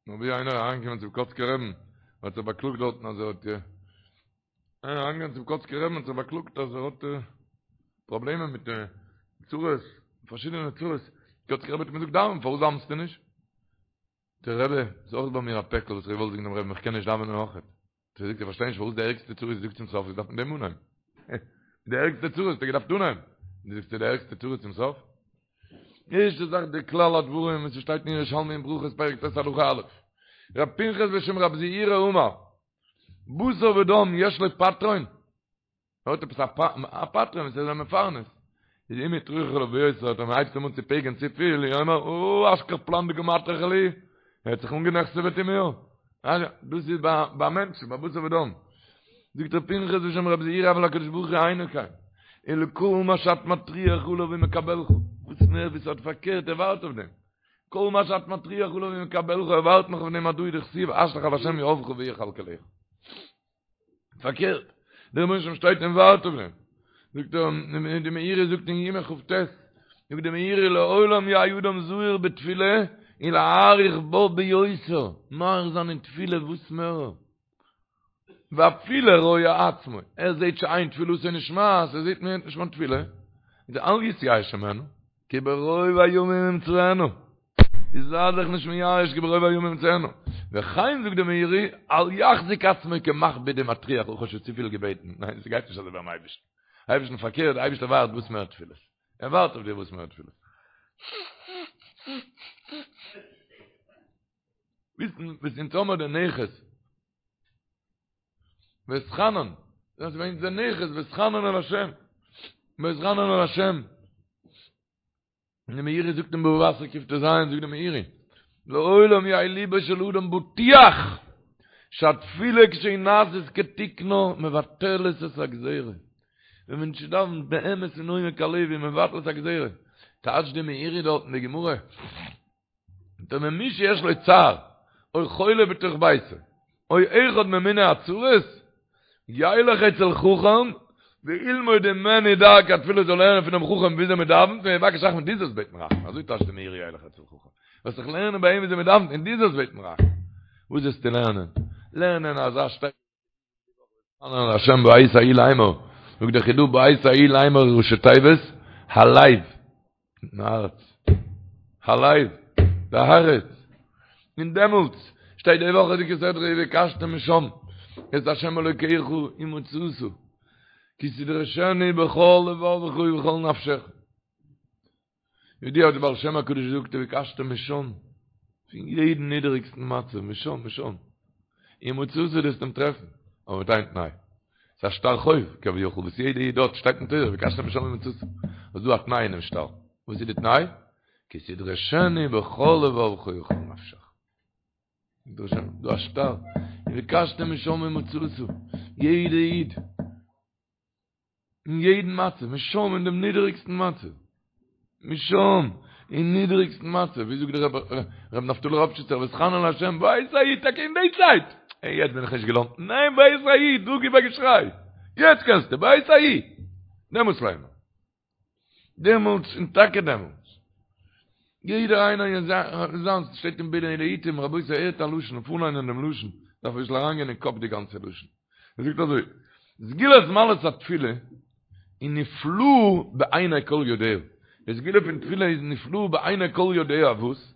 נאר ווי איינער אריינגעקומען צום קאצקער רעבן, האט זיך באקלאגט דארטן אז ער האט איינער אריינגעקומען צום קאצקער רעבן האט זיך באקלאגט אז ער האט פראבלעמען מיט צרות, פארשידענע צרות, קאצקער רבי האט אים געזאגט דאווען, פארוואס דאווענסטו נישט? דער רבי, ס'איז אויך ביי מיר א פעקל וואס איך וואלט זאגן דעם רבין איך קען נישט דאווענען אויכעט. האט ער געזאגט איך פארשטיי נישט פארוואס די ערגסטע צרות זאגסט צום סוף, דארף מען דעם אנהייבן. די ערגסטע צרות האסטו געדארפט אנהייבן. דו זאגסט די ערגסטע צרות צום סוף? ערשטע זאך די כלל הדברים וואס שטייט אין ירושלמי אין ברכות פרק ט' הלכה א'. רב פנחס בשם רב זעירא אמר בשר ודם יש לו פטרון ער האט עפעס א פטרון וואס איז אים מפרנס. איז אם הטריחו עליו ביותר, אז מען הייבט אים אן צו פעגען צופיל, יאמר, או, אשכח פלן דקא מטרח לי, ער האט זיך אנגענעכסעוועט אין מיר. דאס איז ביי מענטשן, ביי בשר ודם. זאגט ר' פנחס בשם רב זעירא אבל הקדוש ברוך הוא אינו כן, אלא כל מה שאת מטריח עליו הוא מקבלך. וואס מער ווי ס'האט פארקערט, ער ווארט אויף דעם. כל מה שאת מטריח עליו הוא מקבלך, ער ווארט נאך אויף דעם הדא הוא דכתיב השלך על השם יהבך והוא יכלכלך. פארקערט, דער רבונו של עולם שטייט און ווארט אויף דעם. זאגט ער, די מאירי זאגט אין יומא כ"ט, זאגט די מאירי לעולם יהא אדם זהיר בתפילה, ולהאריך בה ביותר, מאריך זיין אין תפילה וואס מער, ואפילו רואה עצמו, ער זעט שאין תפילתו נשמעת, ער זעט מ'הערט נישט מיין תפילה, איז אל יתייאש ממנו, כי ברוב הימים ימצאנו, איז זיי זיך נישט מייאש כי ברוב הימים ימצאנו, וכן זאגט די מאירי, אל יחזיק עצמו כמכביד ומטריח, איך האב שוין צופיל געבעטן, ניין ס'גייט נישט אזוי ביים אייבערשטן, אייבערשטן פארקערט, די אייבערשטער ווארט וואס מער תפילות, ער ווארט אויף דיר וואס מער תפילות. וויסן וואס אונז האמער די נכס ואתחנן דאס איז ווען די נכס ואתחנן אל השם ואתחנן אל השם און די מאירי זאגט אין בבא בתרא קט"ז זאגט די מאירי לעולם יהא ליבו של אדם בטוח שהתפילה כשהיא נעשית כתיקנה מבטלת את הגזירה ווען מענטש דאווענט באמת אין עומק הלב איז מבטל את הגזירה טייטשט די מאירי דארט אין די גמרא דער מי שיש לו צער, או חולה בתוך ביתו, או אחד ממיני הצרות, ילך אצל חכם, וילמוד ממנו דרכי התפילה זאל לערנען פונעם חכם וויאזוי מען דאווענט, ויבקש רחמים דו זאלסט בעטן רחמים, אזוי טייטשט די מאירי ילך אצל חכם, וועסט זיך לערנען ביי אים וויאזוי מען דאווענט און דו זאלסט בעטן רחמים. וואס זאלסטו לערנען? לערנען אזא שטייגער ואתחנן אל השם בעת ההיא לאמר, זאגט דער חידא בעת ההיא לאמר ראשי תיבות, הלב, מיטן הארץ, הלב, די הארץ, און דעמאלטס שטייט די וואכעדיגע סדרה ובקשתם משם את השם אלוקיך ומצאת כי תדרשנו בכל לבבך ובכל נפשך. ידוע האט די בעל שם הקדוש געזאגט ובקשתם משם, פון יעדן נידעריגסטן מצב, משם, משם, ומצאת דו וועסט אים טרעפן, אבער מיט איין תנאי, ס'איז א שטר חוב כביכול וואס יעדע איד האט, שטייט אין תורה ובקשתם משם ומצאת, איז דא א תנאי אינעם שטר, וואס איז די תנאי? כי תדרשנו בכל לבבך ובכל נפשך. דא א שטר, ובקשתם משם ומצאת, יעדע איד. אין יעדן מצב, משם אין דעם נידעריגסטן מצב, משם אין נידעריגסטן מצב, ווי זאגט דער רב נפתלי ראפשיצער, ואתחנן אל השם, בעת ההיא, טאקע אין די צייט, אה, יעצט בין איך נישט געלוינט, ניין בעת ההיא, דא גיב א געשריי, יעצט קענסטו, בעת ההיא, דעמאלטס ליינען. דעמאלטס און טאקע דעמאלטס. יעדער איינער אין זיינס שטייט אין בינה לעתים, רבותי הערט א לשון, פארליינען דעם לשון, דארף אביסל אריינגיין אין קאפ די גאנצע לשון. ער זאגט אזוי, סגולת מעלת התפילה היא נפלאה בעיני כל יודע. די סגולה פון תפילה איז נפלאה בעיני כל יודע וואס?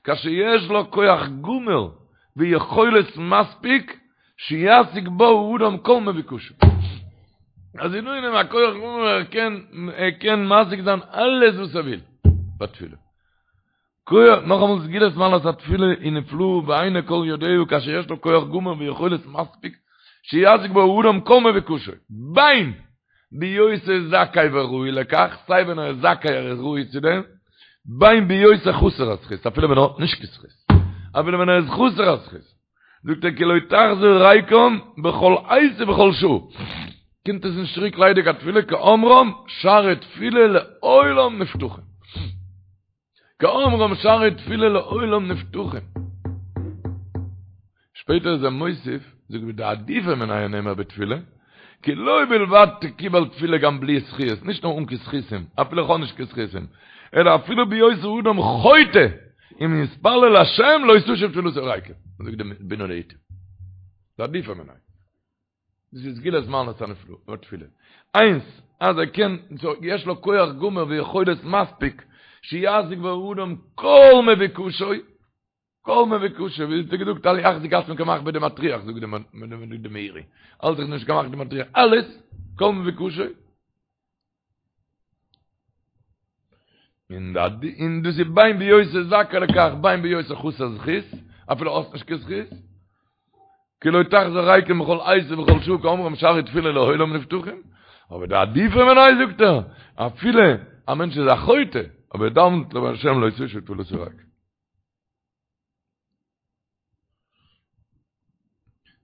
כאשר יש לה כח גמור ויכולת מספיק שישיג בה האדם כל מבוקשו. אז איז דא אין אים א כח גמור ער קען ער קען משיג זיין אלעס וואס ער וויל בתפילה. כח, נאכאמאל סגולת מעלת התפילה היא נפלאה בעיני כל יודע כאשר יש לה כח גמור ויכולת מספיק שישיג בה האדם כל מבוקשו. בין בהיותו זכאי וראוי לכך, סיי ווען ער איז זכאי ער איז ראוי צו דעם, בין בהיותו חסר הזכות, אפילו ווען ער האט נישט קיין זכות, אפילו ווען ער איז חסר הזכות. זאגט ער כי לא תחזור ריקם בכל עת ובכל שעה, קומט עס נישט צוריק ליידיג א תפילה כאומרם שערי תפילה לעולם נפתחים, כאומרם שערי תפילה לעולם נפתחים, שפעטער איז ער מוסיף, זאגט ודעדיפא מינייהו נאמר בתפילה, כי לא בלבד תקובל תפילה גם בלי זכיות, נישט נאר אן קיין זכותים, אפילו איך האב נישט קיין זכותים, אלא אפילו בהיות האדם חוטא, אם יתפלל להשם לא תשוב תפילתו ריקם. זאגט די בינה לעתים. דעדיפא מינייהו. דאס איז סגולת מעלת התפילה. איינס, אז ער קען, יש לו כח גמור ויכולת מספיק, שישיג בה האדם כל מבוקשו, כל מבוקשו, ווי האט ער געזאגט, אל יחזיק עצמו כמכביד ומטריח, זאגט די מאירי, האלט זיך נישט כמכביד ומטריח, אלעס, כל מבוקשו. און און דאס איז בין בהיותו זכאי לכך, בין בהיותו חסר זכות, אפילו האסט נישט קיין זכות, כי לא תחזור ריקם בכל עת ובכל שעה כאומרם שערי תפילה לעולם נפתחים, אבער דעדיפא מינייהו זאגט ער, אפילו א מענטש איז א חוטא, אבער ער דאווענט להשם לא תשוב תפילתו ריקם.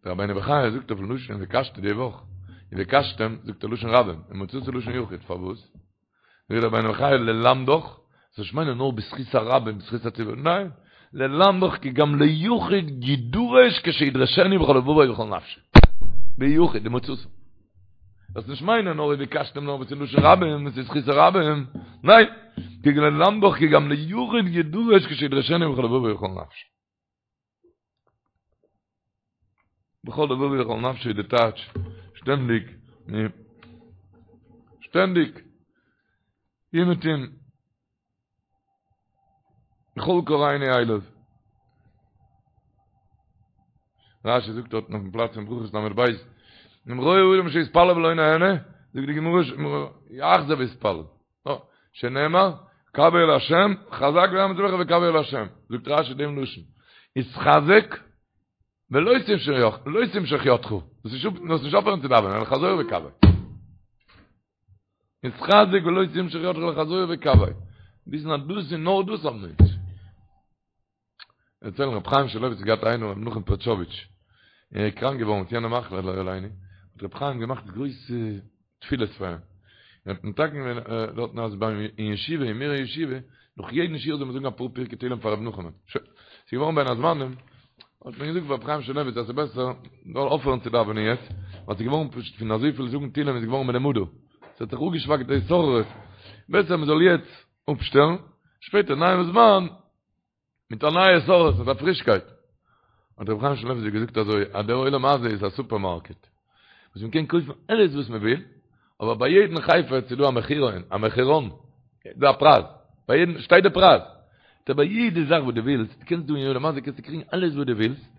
דער רבינו בחיי זאגט אויפן לשון ובקשתם די וואך, ובקשתם זאגט ער לשון רבים, ומצאת לשון יחיד, פארוואס? זאגט דער רבינו בחיי ללמדך, זאלסט נישט מיינען נאר בזכות הרבים, בזכות הציבור, ניין, ללמדך כי גם ליחיד ידרש כשידרשנו בכל לבבו ובכל נפשו, ביחיד, ומצאת. זאלסט נישט מיינען נאר ובקשתם נאר וואס איז לשון רבים, וואס איז זכות הרבים, ניין! כדי ללמדך כי גם ליחיד ידרש כשידרשנו בכל לבבו ובכל נפשו. בכל לבבו ובכל נפשו איז די טייטש שטענדיג, שטענדיג, אומעטום, בכל קראנו אליו. רשי זאגט דארט אויפן פלאץ אין ברכות ל"ב, אם רואה אדם שהתפלל ולא נענה, זאגט די גמרא, יחזור ויתפלל. שנאמר, קוה אל השם, חזק ואמץ לבך וקוה אל השם. זאגט רשי דעם לשון, התחזק ולא תמשוך ידך, זאלסט נישט אויפהערן צו דאווענען, אלא חזור וקוה. התחזק ולא תמשוך ידך אלא חזור וקוה. וויסן אז דאס איז נאר דאס האבן מיר. דערציילן רבי חיים שמואלעוויץ האט געהאט איינעם רבי נחום פערטשאוויטש, ער איז קראנק געווארן מיט יענע מחלה לא עלינו, האט רבי חיים געמאכט גרויסע תפילות פאר אים, און האט מתקן געווען דארטן אז ביים אין ישיבה אין מירער ישיבה נאך יעדן שיעור זאל מען זאגן אפאר פרקי תהילים פאר רבי נחומ'ן, שוין, ס'איז געווארן בין הזמנים, האט מען געזאגט פאר רבי חיים שמואלעוויץ אז ס'איז בעסער זאל אויפהערן צו דאווענען יעצט, ווייל ס'איז געווארן פשוט פון אזויפיל זאגן תהילים איז געווארן מלומדה, ס'האט זיך אפגעשוואכט די התעוררות, בעסער מ'זאל יעצט אפשטעלן, שפעטער נייעם זמן מיט א נייע התעוררות, מיט א פרישקייט. האט רבי חיים שמואלעוויץ געזאגט אזוי, אז דער עולם הזה איז א סופערמארקעט, וואס מען קען קויפן אלעס וואס מען וויל, אבער ביי יעדן חפץ איז דא א מחירון, א מחירון, דא א פרייז, ביי יעדן שטייט די פרייז. טא ביי יעדע זאך וואס דו ווילסט, דו קענסט דא אין עולם הזה קענסטו קריגן אלעס וואס דו ווילסט,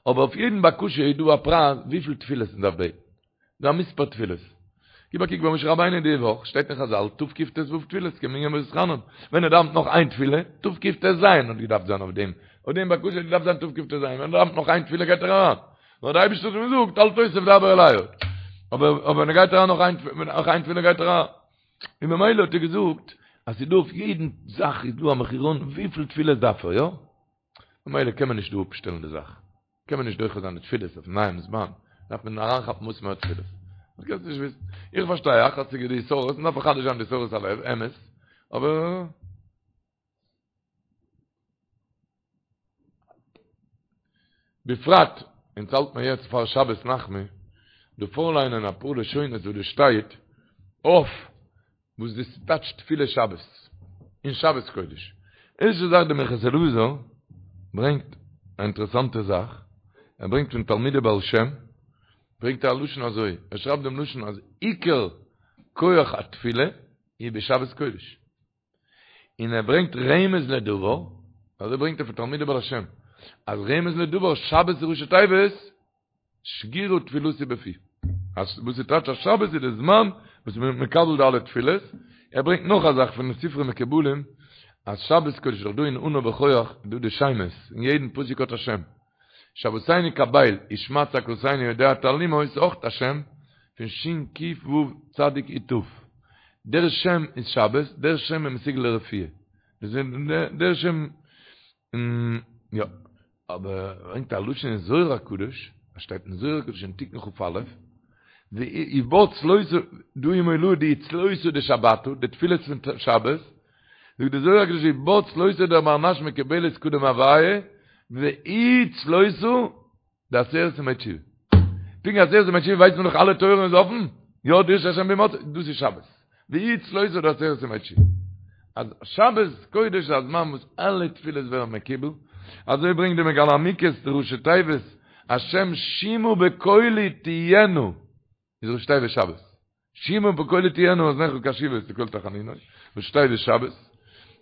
אבער אויף יעדן בקשה איז דא א פרייז וויפיל תפילות מען דארף בעטן. דא א מספר תפילות. גיב א קוק ביי משה רבינו די וואך, שטייט אין חזל, תקט"ו תפילות כמנין ואתחנן. ווען ער דאווענט נאך איין תפילה, תקט"ז האט געדארפט זיין אויף דעם, אויף דעם בקשה האט געדארפט זיין תקט"ז, ווען ער דאווענט נאך איין תפילה גייט ער אריין. נאר דער אייבערשטער האט אים געזאגט, אל תוסיף דבר אלי עוד. אבער אבער ווען ער גייט אריין נאך איין נאך איין תפילה גייט ער אריין. און ממילא האט ער געזאגט, אז ס'איז דא אויף יעדן זאך איז דא א מחירון וויפיל תפילות דארף ער, יא? ממילא קען מען נישט דא אפשטעלן די זאך. קען מען נישט דוחה זיין די תפילות אויפן נייעם זמן, דארף מען אריינכאפן וואס מער תפילות. דאס קענסטו נישט וויסן. איך פארשטיי אייך אז ס'איז די התעוררות, מ'דארף מחדש זיין די התעוררות הלב, אמת, אבער. בפרט, אונז האלט מיר יעצט פאר שבת נחמו, דא פארליינען אפאר לשונות וואס דא שטייט אויף וואס דאס טייטש תפילה שבת אין שבת קודש. ערשטע זאך די מנחת אלעזר ברענגט א אינטערעסאנטע זאך, ער ברענגט פון תלמידי בעל שם, ברענגט ער א לשון אזוי, ער שרייבט דעם לשון אז עיקר כח התפילה איז בשבת קודש, און ער ברענגט רמז לדבר, אזוי ברענגט ער פון תלמידי בעל שם, אז רמז לדבר שבת איז ראשי תיבות, שגורה תפילתי בפי. אז וואס איז טייטש אז שבת איז די זמן וואס מען איז מקבל די אלע תפילות, ער ברענגט נאך א זאך פון די ספרי מקובלים, אז שבת קודש איז דאך דא אין אנא בכח איז דא די שמות, אין יעדן פסוק האט א שם. שועתנו קבל, ושמע צעקתנו יודע תעלומות איז אויך א שם פון שין קוף וו צדיק יוד תיו. דער שם איז שבת, דער שם איז מסוגל לרפואה. דער שם יא, אבער ער ברענגט א לשון אין זוהר הקדוש, עס שטייט אין זוהר הקדוש אין תיקון כ"א, ובה צלותא דא היא מולא די צלותא דשבתא, די תפילות פון שבת, זאגט די זוהר הקדוש ובה צלותא דבר נש מקובלת קדם הוויה, והיא צלותא דעשרת ימי תשובה. פונקט עשרת ימי תשובה ווייסט מען דאך אלע טויערן איז אפן, יא דרשו השם בהמצאו, דאס איז שבת. והיא צלותא דעשרת ימי תשובה. אז שבת קודש איז א זמן וואס אלע תפילות ווערן מקובל, אזוי ברענגט די מגלה עמוקות די ראשי תיבות, השם שמעה בקולי תהיינה. איז ראשי תיבות שבת. שמעה בקולי תהיינה אזניך קשובות לקול תחנוני, ראשי תיבות שבת.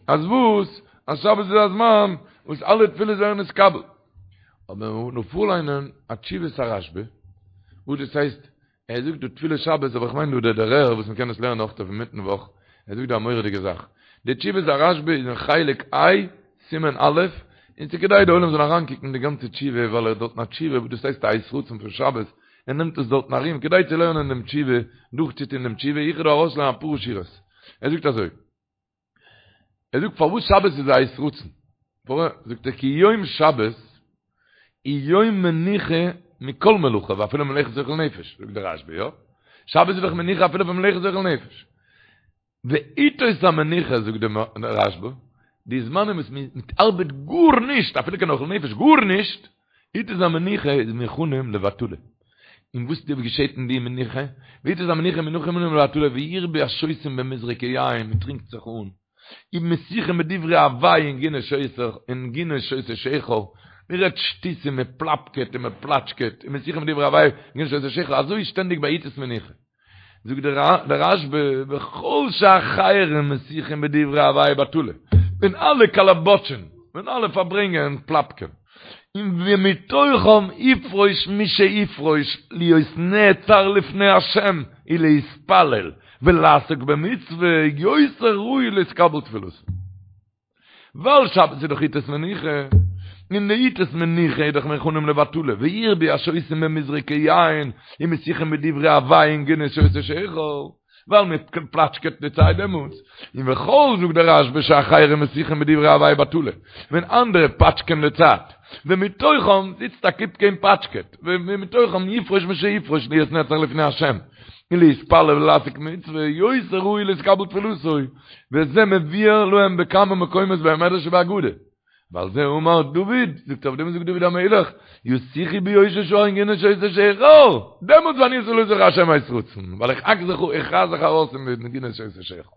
אז וואס? אז שבת איז א זמן וואס אלע תפילות ווערן נתקבל. אבער מען מוז נאר פארליינען א תשובת הרשב"א, וואס דאס הייסט, ער זאגט דא תפילת שבת, אבער איך מיין דא דער דערער וואס מען קען עס לערנען אויך אויף אינמיטן וואך, ער זאגט דא א מורא'דיגע זאך. די תשובת הרשב"א איז אין חלק ה', סימן א', און ס'כדאי די עולם זאל אריינקוקן די גאנצע תשובה, ווייל ער האט דארטן א תשובה וואס דאס הייסט א עת רצון פון שבת, ער נעמט עס דארטן ארום כדי צו לערנען דעם תשובה, דורכצוטון דעם תשובה, איך וועל דא ארויסלערנען אפאר שורות. ער זאגט אזוי, ער זאגט פארוואס שבת איז א עת רצון, זאגט ער כי יום שבת הוא יום מנוחה מכל מלאכה ואפילו מלאכת אוכל נפש, זאגט דער רשב"א, יא? שבת איז דאך מנוחה אפילו פון מלאכת אוכל נפש. ועתות המנוחה זאגט דער רשב"א, די זמנים וואס מען ארבעט גארנישט, אפילו קיין אוכל נפש, גארנישט, עתות המנוחה איז מוכנים לבטלה. און וואס געשעט אין די מנוחה? ועתות המנוחה מוכנים לבטלה וירבו השותים במזרקי יין, מען טרינקט זיך אן. ומשיחין בדברי הבאי ונגינות שותה שכר, מען רעדט שטותים, מען פלאפקעט און מען פלאטשקעט, ומשיחין בדברי הבאי ונגינות שותה שכר, אזוי איז שטענדיג ביי עתות מנוחה. זאגט דער רשב"א, וכל שאחרים משיחין בדברי הבאי בטלה, ווען אלע קאלאבאטשען, ווען אלע פארברענגען און פלאפקען, און ומתוכם יפרוש מי שיפרוש להיות נעצר לפני השם ולהתפלל ולעסוק במצוה יותר ראוי להתקבל תפילתו. ווייל שבת איז דאך עתות מנוחה, און די עתות מנוחה איז דאך מוכנים לבטלה, וירבו השותים במזרקי יין ומשיחין בדברי הבאי ונגינות שותה שכר, ווייל מען פלאטשקעט די צייט דעמאלטס, און וכל זאגט דער רשב"א שאחרים משיחין בדברי הבאי בטלה, ווען אנדערע פאטשקען די צייט, ומתוכם זיצט א קופקע און פאטשקעט, ומתוכם יפרוש מי שיפרוש להיות נעצר לפני השם, ולהתפלל ולעסוק במצוה, יותר ראוי להתקבל תפילתו, וזה מבואר להם בכמה מקומות במדרש ובאגדה. ועל זה אמר דוד, זאגט אויף דעם זאגט דוד המלך, ישיחו בי יושבי שער ונגינות שותה שכר, דעמאלטס ואני תפלתי השם עת רצון, ווייל איך האק זיך איך רייס זיך ארויס פון די נגינות שותה שכר.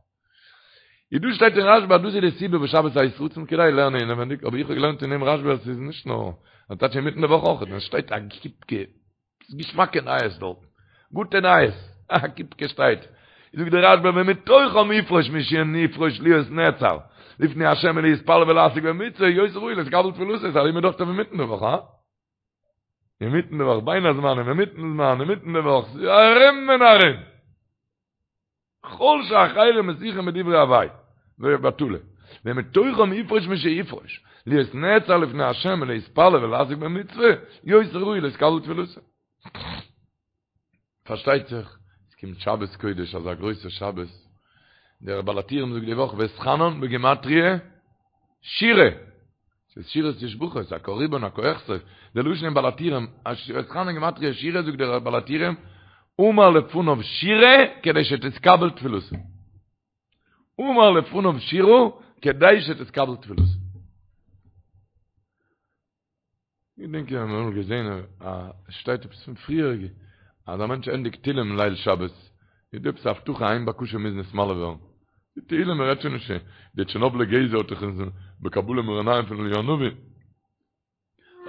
איז דא שטייט אין רשב"א אז דאס איז די סיבה וואס שבת עת רצון כדאי לערנען אינעווענדיג, אבער איך האב געלערנט אין דעם רשב"א אז עס איז נישט נאר, אז טייטש אינמיטן די וואך אויך, עס שטייט א קופקע ס'איז געשמאקע נייעס דארטן. גוטע נייעס. א קופקע שטייט. זאגט דער רשב"א ומתוכם יפרוש מי שיפרוש להיות נעצר לפני השם ולהתפלל ולעסוק במצוה יותר ראוי להתקבל תפילתו איז ארום דאך אינמיטן די וואך, הא? אינמיטן די וואך, בין הזמנים, אינמיטן זמן, אינמיטן די וואך, ס'איז ארום און ארום. כל שאחרים משיחין בדברי הבאי בטלה, ומתוכם יפרוש מי שיפרוש, להיות נעצר לפני השם ולהתפלל ולעסוק במצוה, יותר ראוי להתקבל תפילתו. פארשטייט זיך, עס קומט שבת קודש, אזא גרויסע שבת, דער בעל הטורים זאגט די וואך ואתחנן בגימטריא שירה, ס'איז שירות ותשבחות, א קה ריבון א קה אכסוף, די לשון אין בעל הטורים, ואתחנן גימטריא שירה זאגט דער בעל הטורים, אמר לפניו שירה כדי שתתקבל תפילתו. אמר לפניו שירה כדי שתתקבל תפילתו. איך דענק איך האב אמאל געזען א עס שטייט עפעס פון פריעריגע אז א מענטש ענדיגט תהילים ליל שבת איז דא עפעס א הבטחה איין בקשה מוז נתמלא ווערן. די תהילים מען רעדט שוין נישט די טשערנאבלער גזע האט דאך אונז בקבלה מאור עינים פון אליהו הנביא.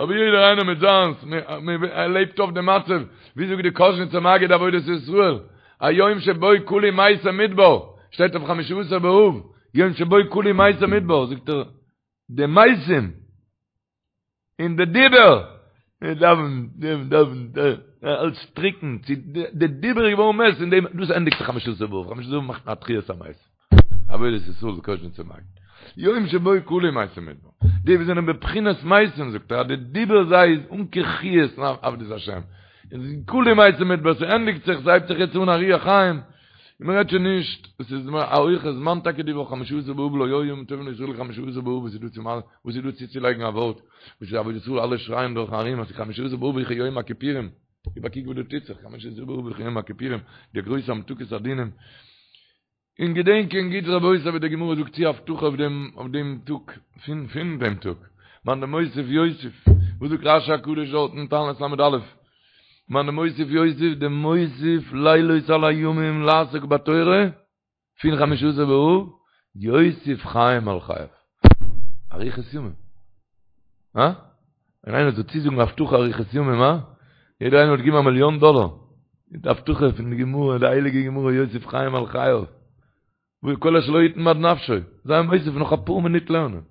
אבער יעדער איינער מיט זיינס, מען לעבט אויף די מצב, ווי זאגט די קאזשניצער מגיד עבודת ישראל, היום שבו כלו מתי מדבר, שטייט אויף חמשה עשר באב, יום שבו כלו מתי מדבר, זאגט ער, די מתים, און די דיבור, מען דאווענט, מען דאווענט, אלץ טריקן, צו די דיבור איז געווארן מת, און דעם, דאס ענדיגט זיך חמשה עשר באב, חמשה עשר באב מאכט מען א תחיית המתים, עבודת ישראל די קאזשניצער מגיד, יום שבו כלו מתי מדבר, די וואס זענען בבחינת מתים זאגט ער אז די דיבור זיי איז אן קיין חיות אין עבודת השם, און כלו מתי מדבר, ס'ענדיגט זיך, ס'הייבט זיך יעצט אן א רוח חיים, און מען רעדט שוין נישט, עס איז א הויכע זמן טאקע די וואך חמשה עשר באב לא היו ימים טובים לישראל כחמשה עשר באב וואס איז דא צו וואס איז דא צוצולייגן א ווארט וואס איז עבודת ישראל אלע שרייען דורך ארום אז חמשה עשר באב איז כיום הכיפורים גיב א קוק וואס דא טוט זיך חמשה עשר באב איז כיום הכיפורים די גרויסע המתקת הדינים און געדענקען גוט רבותי ווי די גמרא זאגט צו הבטחה אויף דעם אויף דעם טאג פון פון דעם טאג מאן דמוסיף יוסיף וואס זאגט רשי הקדוש דארט אין תענית ל"א מאן דמוסיף יוסיף דמוסיף לילות על הימים לעסוק בתורה פון חמשה עשר באב יוסיף חיים על חייו אריכות ימים הא? ווען איינער זאל צוזאגן הבטחה אריכות ימים הא? יעדער איינער וואלט געגעבן א מיליאן דאלער די הבטחה פון די גמרא די הייליגע גמרא יוסיף חיים על חייו וכל אשר לו יתן בעד נפשו, זיי מוסיף נאך אפאר מינוט לערנען.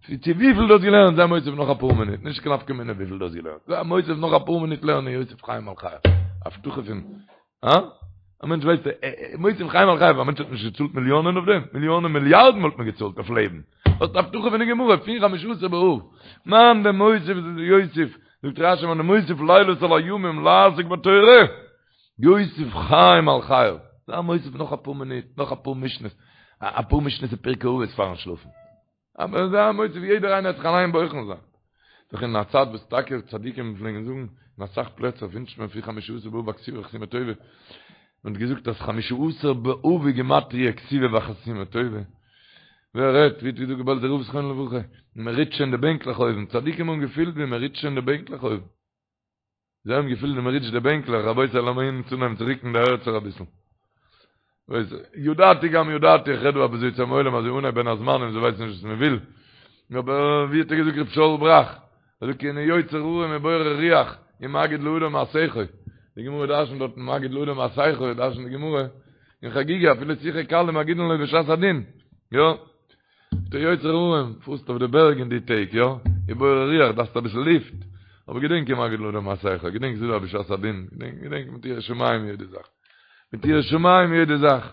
צו וויפיל דו האסט געלערנט, זיי מוסיף נאך אפאר מינוט, נישט קיין נפקא מינה וויפיל דו האסט געלערנט. זיי מוסיף נאך אפאר מינוט לערנען יוסיף חיים על חייו. הבטחה פון, הא? א מענטש ווייסט, מוסיף חיים על חייו, א מענטש האט נישט געצאלט מיליאנען אויף דעם, מיליאנען מיליארדן וואלט מען געצאלט אויף לעבן. האסט הבטחה פון די גמרא, פון חמשה עשר באב. מאן דמוסיף יוסיף, זאגט רשי מאן דמוסיף לילות על הימים לעסוק בתורה. יוסיף חיים על חייו, זיי מוסיף נאך אפאר מינוט, נאך אפאר משניות, אפאר משניות אין פרקי אבות פארן שלאפן. אבער זיי מוסיף יעדער איינער האט זיך אליין בוחן זיין. דאך אין א צייט וואס טאקע צדיקים פלעגן זאגן, אין אסאך פלעצער ווינטשט מען פון חמשה עשר באב א כתיבה וחתימה טובה, מען האט געזאגט אז חמשה עשר באב איז גימטריא כתיבה וחתימה טובה. ווער רעדט, ווי האט געזאגט דער בעלזער רב זכרונו לברכה, מען ריטשט שוין די בענקלעך אויבן, צדיקים האבן געפילט ווי מען ריטשט שוין די בענקלעך אויבן. זיי האבן געפילט ווי מען ריטשט די בענקלעך, רבותי לאמיר אונז אנהייבן צו ריקן די הערצער אביסל. ווייס ידעתי גם ידעתי איך רעד דא אביסל צום עולם אז אנהייב בין הזמנים זיי ווייסן נישט וואס מען וויל אבער ווי האט ער געזאגט רב שאול בראך ער זאגט כי הנה יוצר הרים ובורא רוח ומגיד לאדם מה שיחו די גמרא דרשנט דארט מגיד לאדם מה שיחו דרשנט די גמרא אין חגיגה אפילו שיחה קלה מגידין לו בשעת הדין יא דער יוצר הרים פארסט אויף די בערג אין די טעג יא ובורא רוח דארפסט אביסל לופט אבער געדענק ומגיד לאדם מה שיחו געדענק ס'איז דא בשעת הדין געדענק געדענק מיט יראת שמים יעדע זאך מיט יראת שמים יעדע זאך.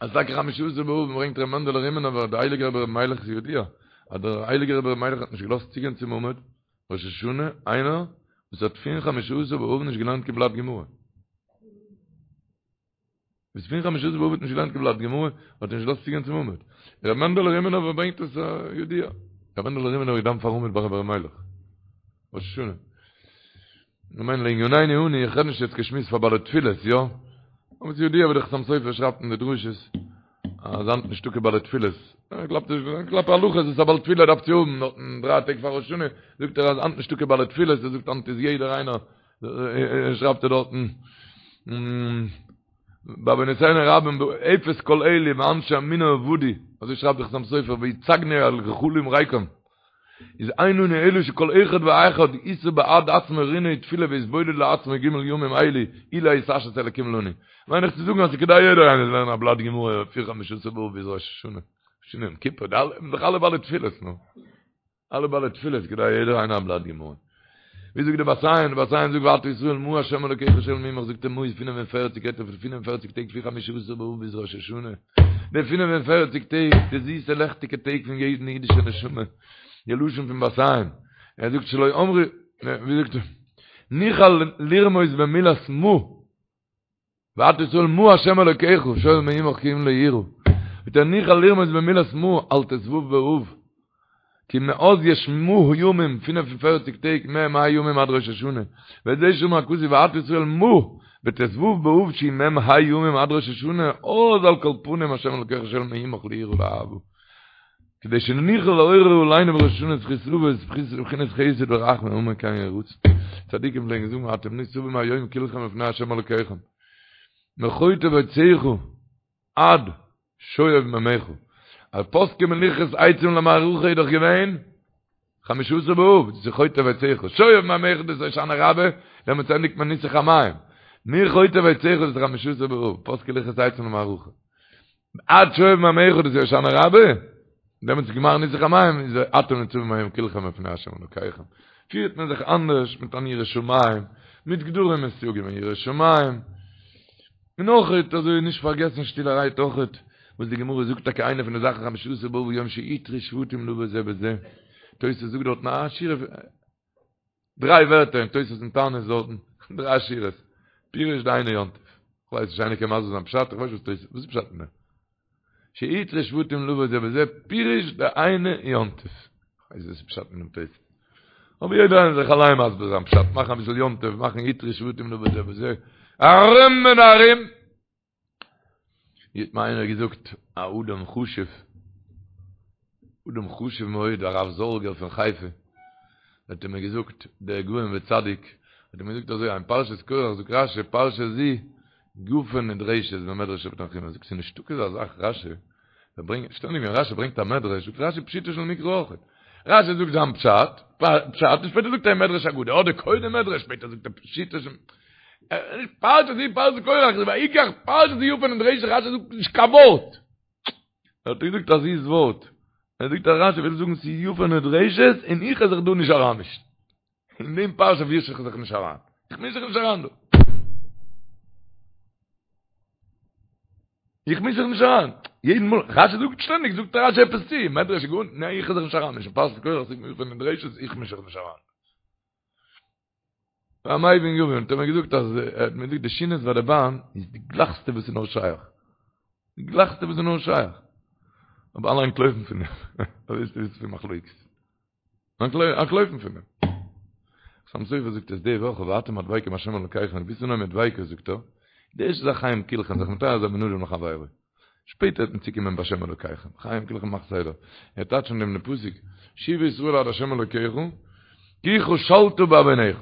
אז טאקע חמשה עשר באב ברענגט ר' מענדעלע רימינובער דער הייליגער רבי ר' מיילעך איז ידוע אז דער הייליגער רבי ר' מיילעך האט נישט געלאזט צוגיין צום עמוד ראש השנה איינער וואס האט פון חמשה עשר באב נישט געלערנט קיין בלאט גמרא. וואס פון חמשה עשר באב האט נישט געלערנט קיין בלאט גמרא האט ער נישט געלאזט צוגיין צום עמוד. ר' מענדעלע רימינובער ברענגט עס ידוע. ר' מענדעלע רימינובער געדאווענט פארן עמוד ביי רבי ר' מיילעך ראש השנה. איך מיין לענינינו אנו, איך רעד נישט יעצט קיין שמועס פאר בעלי תפילות, יא? אבער ס'איז ידוע ווי דער חתם סופר שרייבט אין די דרשות, אז היינט נישטא קיין בעלי תפילות. ער קלאפט נישט, קלאפט הלכות וואס א בעל תפילה דארף צו האבן, נאכן דריי טעג פאר ראש השנה, זאגט ער אז היינט נישטא קיין בעלי תפילות, ער זאגט היינט איז יעדער איינער, שרייבט ער דארטן, בעוונותינו הרבים אפס כל אלה ואנשי אמונה אבדו, אזוי שרייבט דער חתם סופר, והצגנו על גחלים ריקם. איז אין לנו אלא שכל אחד ואחד ישא בעד עצמו רינה ותפילה ויתבודד לעצמו ג' ימים אלו אולי יתעשת אלקים לנו. מיין איך צו זאגן אז ס'כדאי יעדער איינער זאל לערנען א בלאט גמרא פון חמשה עשר באב ביז ראש השנה, השנה יום כיפור, די אלע, זענען דאך אלע בעלי תפילות נו. אלע בעלי תפילות כדאי יעדער איינער א בלאט גמרא. ווי זאגט די בת עין, די בת עין זאגט ועתה ישראל מה ה' אלוקיך שואל מעמך זאגט ער מה איז 45 רעדט ער פון 45 טעג פון חמשה עשר באב ביז ראש השנה די 45 טעג די זיסע לעכטיגע טעג פון יעדן אידישע נשמה די לשון פון בת עין ער זאגט שלא אמרו ווי זאגט ער נוכל לרמוז במילת מה ועתה ישראל מה ה' אלוקיך שואל מעמך כי אם ליראה זאגט ער נוכל לרמוז במילת מה על ט"ו באב כי מאז יש מה ימים 45 טעג מ"ה ימים עד ראש השנה וזה שאמר הכתוב ועתה ישראל מה בט"ו באב שהיא מ"ה ימים עד ראש השנה אז על כל פנים ה' אלוקיך שואל מעמך ליראה ולאהבה כדי שנוכל לעורר עלינו בראש השנה זכות אבות בחינת חסד ורחמים אמן כן יהי רצון. צדיקים פלעגן זאגן אתם ניצבים היום כולכם לפני ה' אלוקיכם מחוטב עציך עד שואב מימיך. אז פסקו מלכרות עצים למערכה איז דאך געווען חמשה עשר באב, דאס איז חוטב עציך, שואב מימיך דאס איז הושענא רבה, דעמאלטס ענדיגט מען ניסוך המים. מחוטב עציך דאס איז חמשה עשר באב, פסקו לכרות עצים למערכה. עד שואב מימיך דאס איז הושענא רבה, דעמאלטס איז גמר ניסוך המים, איז אתם ניצבים היום כולכם לפני השם אלוקיכם. פירט מען זיך אנדערש מיט אן יראת שמים, מיט גדרים און סייגים אין יראת שמים. און אויכעט אזוי נישט פארגעסן שטילערהייט אויכעט וואס די גמרא זאגט טאקע איינע פון די זאכן חמשה עשר באב יום שהותרו שבטים לבוא זה בזה, תוס' זאגט דארטן א שורה דריי ווערטער אין תוס' אין תענית דארטן, דריי שורות, פירוש דהיינו יום טוב. כ'ווייס נישט איינער קען מסביר זיין פשט? כ'ווייס נישט וואס תוס' וואס איז פשט אין דעם? שהותרו שבטים לבוא זה בזה פירוש דהיינו יום טוב. כ'ווייס נישט וואס איז פשט אין דעם תוס'. אבער יעדער איינער זאל זיך אליין מסביר זיין פשט, מאכן אביסל יום טוב, מאכן הותרו שבטים לבוא זה בזה, ארום און ארום. ווי האט מיר איינער געזאגט, א אדם חשוב, אדם חשוב מאוד, הרב זארגער פון חיפה, האט ער מיר געזאגט, דער גאון וצדיק, האט ער מיר געזאגט אזוי, אין פרשת קרח זאגט רשי, פרשה זו יפה נדרשת במדרש רבי תנחומא, זאגט ס'איז נישטא כזה זאך רשי, ער ברענגט, שטענדיג ווען רשי ברענגט א מדרש, זאגט רשי פשוטו של מקרא אויך. רשי זאגט זיין פשט, פשט, און שפעטער זאגט ער מדרש אגדה, אדער קודם מדרש, שפעטער זאגט ער פשוטו של פרשה זו פרשת קרח, ויקח פרשה זו יפה נדרשת, רשי זאגט נישט קיין ווארט. ער האט געזאגט א זיס ווארט. ער זאגט אז רשי וויל זאגן ס'איז יפה נדרשת און איך וועל זיך דא נישט אריינמישן. אין דעם פרשה מיש איך זיך נישט אריין. איך מיש זיך נישט אריין דא. איך מיש זיך נישט אריין. יעדן מאל, רשי זאגט שטענדיג, זאגט רשי עפעס צו, מדרש גאון, ניין איך וועל זיך נישט אריינמישן, פרשת קרח זאגט יפה נדרשת, איך מיש זיך נישט אריין. המבין יבין, האט ער מיר געזאגט אז ער האט מיר געזאגט די שינעס ביי די באן איז די גלייכסטע וואס איז נאר שייך. די גלייכסטע וואס איז נאר שייך. אבער אלע אנטלויפן פון דעם. אזוי איז עס פון מחלוקת. אנטלויפן פון דעם. חתם סופר זאגט עס די וואך ואתם הדבקים בהשם אלקיכם, ווי ס'נאר מיט דביקות זאגט ער, די ערשטע זאך חיים כולכם זיך מטהר זיין בין אדם לחבירו. שפעטער וועט מען צוקומען בהשם אלקיכם, חיים כולכם מאך סדר. ער טייטשט אין דעם פסוק, שובה ישראל עד השם אלקיך, כי כשלת בעונך.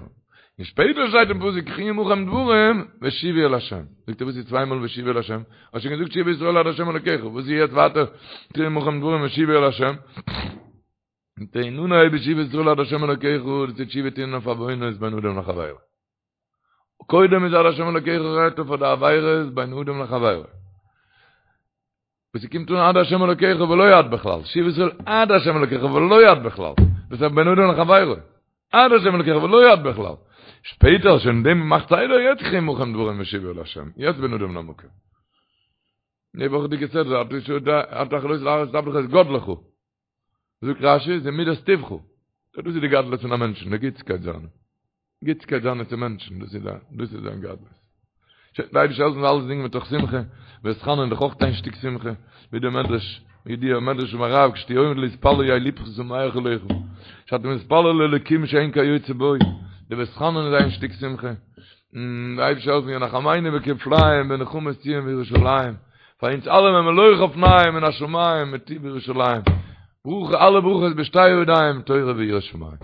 און שפעטער שטייט אין פסוק קחו עמכם דברים ושובו אל השם. זאגט ער וואס איז צוויי מאל ושובו אל השם? האסט שוין געזאגט שובה ישראל עד השם אלוקיך, וואס איז יעצט ווייטער קחו עמכם דברים ושובו אל השם? און אנהייבן שובה ישראל עד השם אלוקיך, דאס איז תשובה טון אויף עוונות בין אדם לחבירו. קודם איז עד השם אלוקיך רעדט ער פאר די עבירות בין אדם לחבירו. וואס ס'קומט אן עד השם אלוקיך ולא עד בכלל, שובה ישראל עד השם אלוקיך ולא עד בכלל, דאס איז בין אדם לחבירו, עד השם אלוקיך ולא עד בכלל. שפעטער שוין דעם מאכט סדר יעצט קחו עמכם דברים ושובו אל השם, יעצט בין אדם למקום. די וואכעדיגע סדרה, אתה החלות להראות את עבדך את גדלך. זאגט רשי, זה מידת טובך. דאס איז די גדלות פון א מענטשן, די גוטסקייט זיינע. גוטסקייט זיינע צו מענטשן, דאס איז דאס איז זיין גדלות. די אייבערשטער זאל העלפן אלעס דינגען מתוך שמחה, ואתחנן דאך אויך איין שטיק שמחה, ווי דער מדרש, ווי די מדרש פון הרב, כשתהיה עומד להתפלל יהא לבך שמח עליך, שאתה מתפלל לאלוקים שאין כיוצא בו, די ואתחנן איז איין שטיק שמחה. די אייבערשטער זאל העלפן ינחמנו בכפליים בנחמות ציון וירושלים. פאר אונז אלעמען מלוא חפניים מן השמים מטוב ירושלים. ברכה אלע ברכות בשתי ידיים תורה ויראת שמים.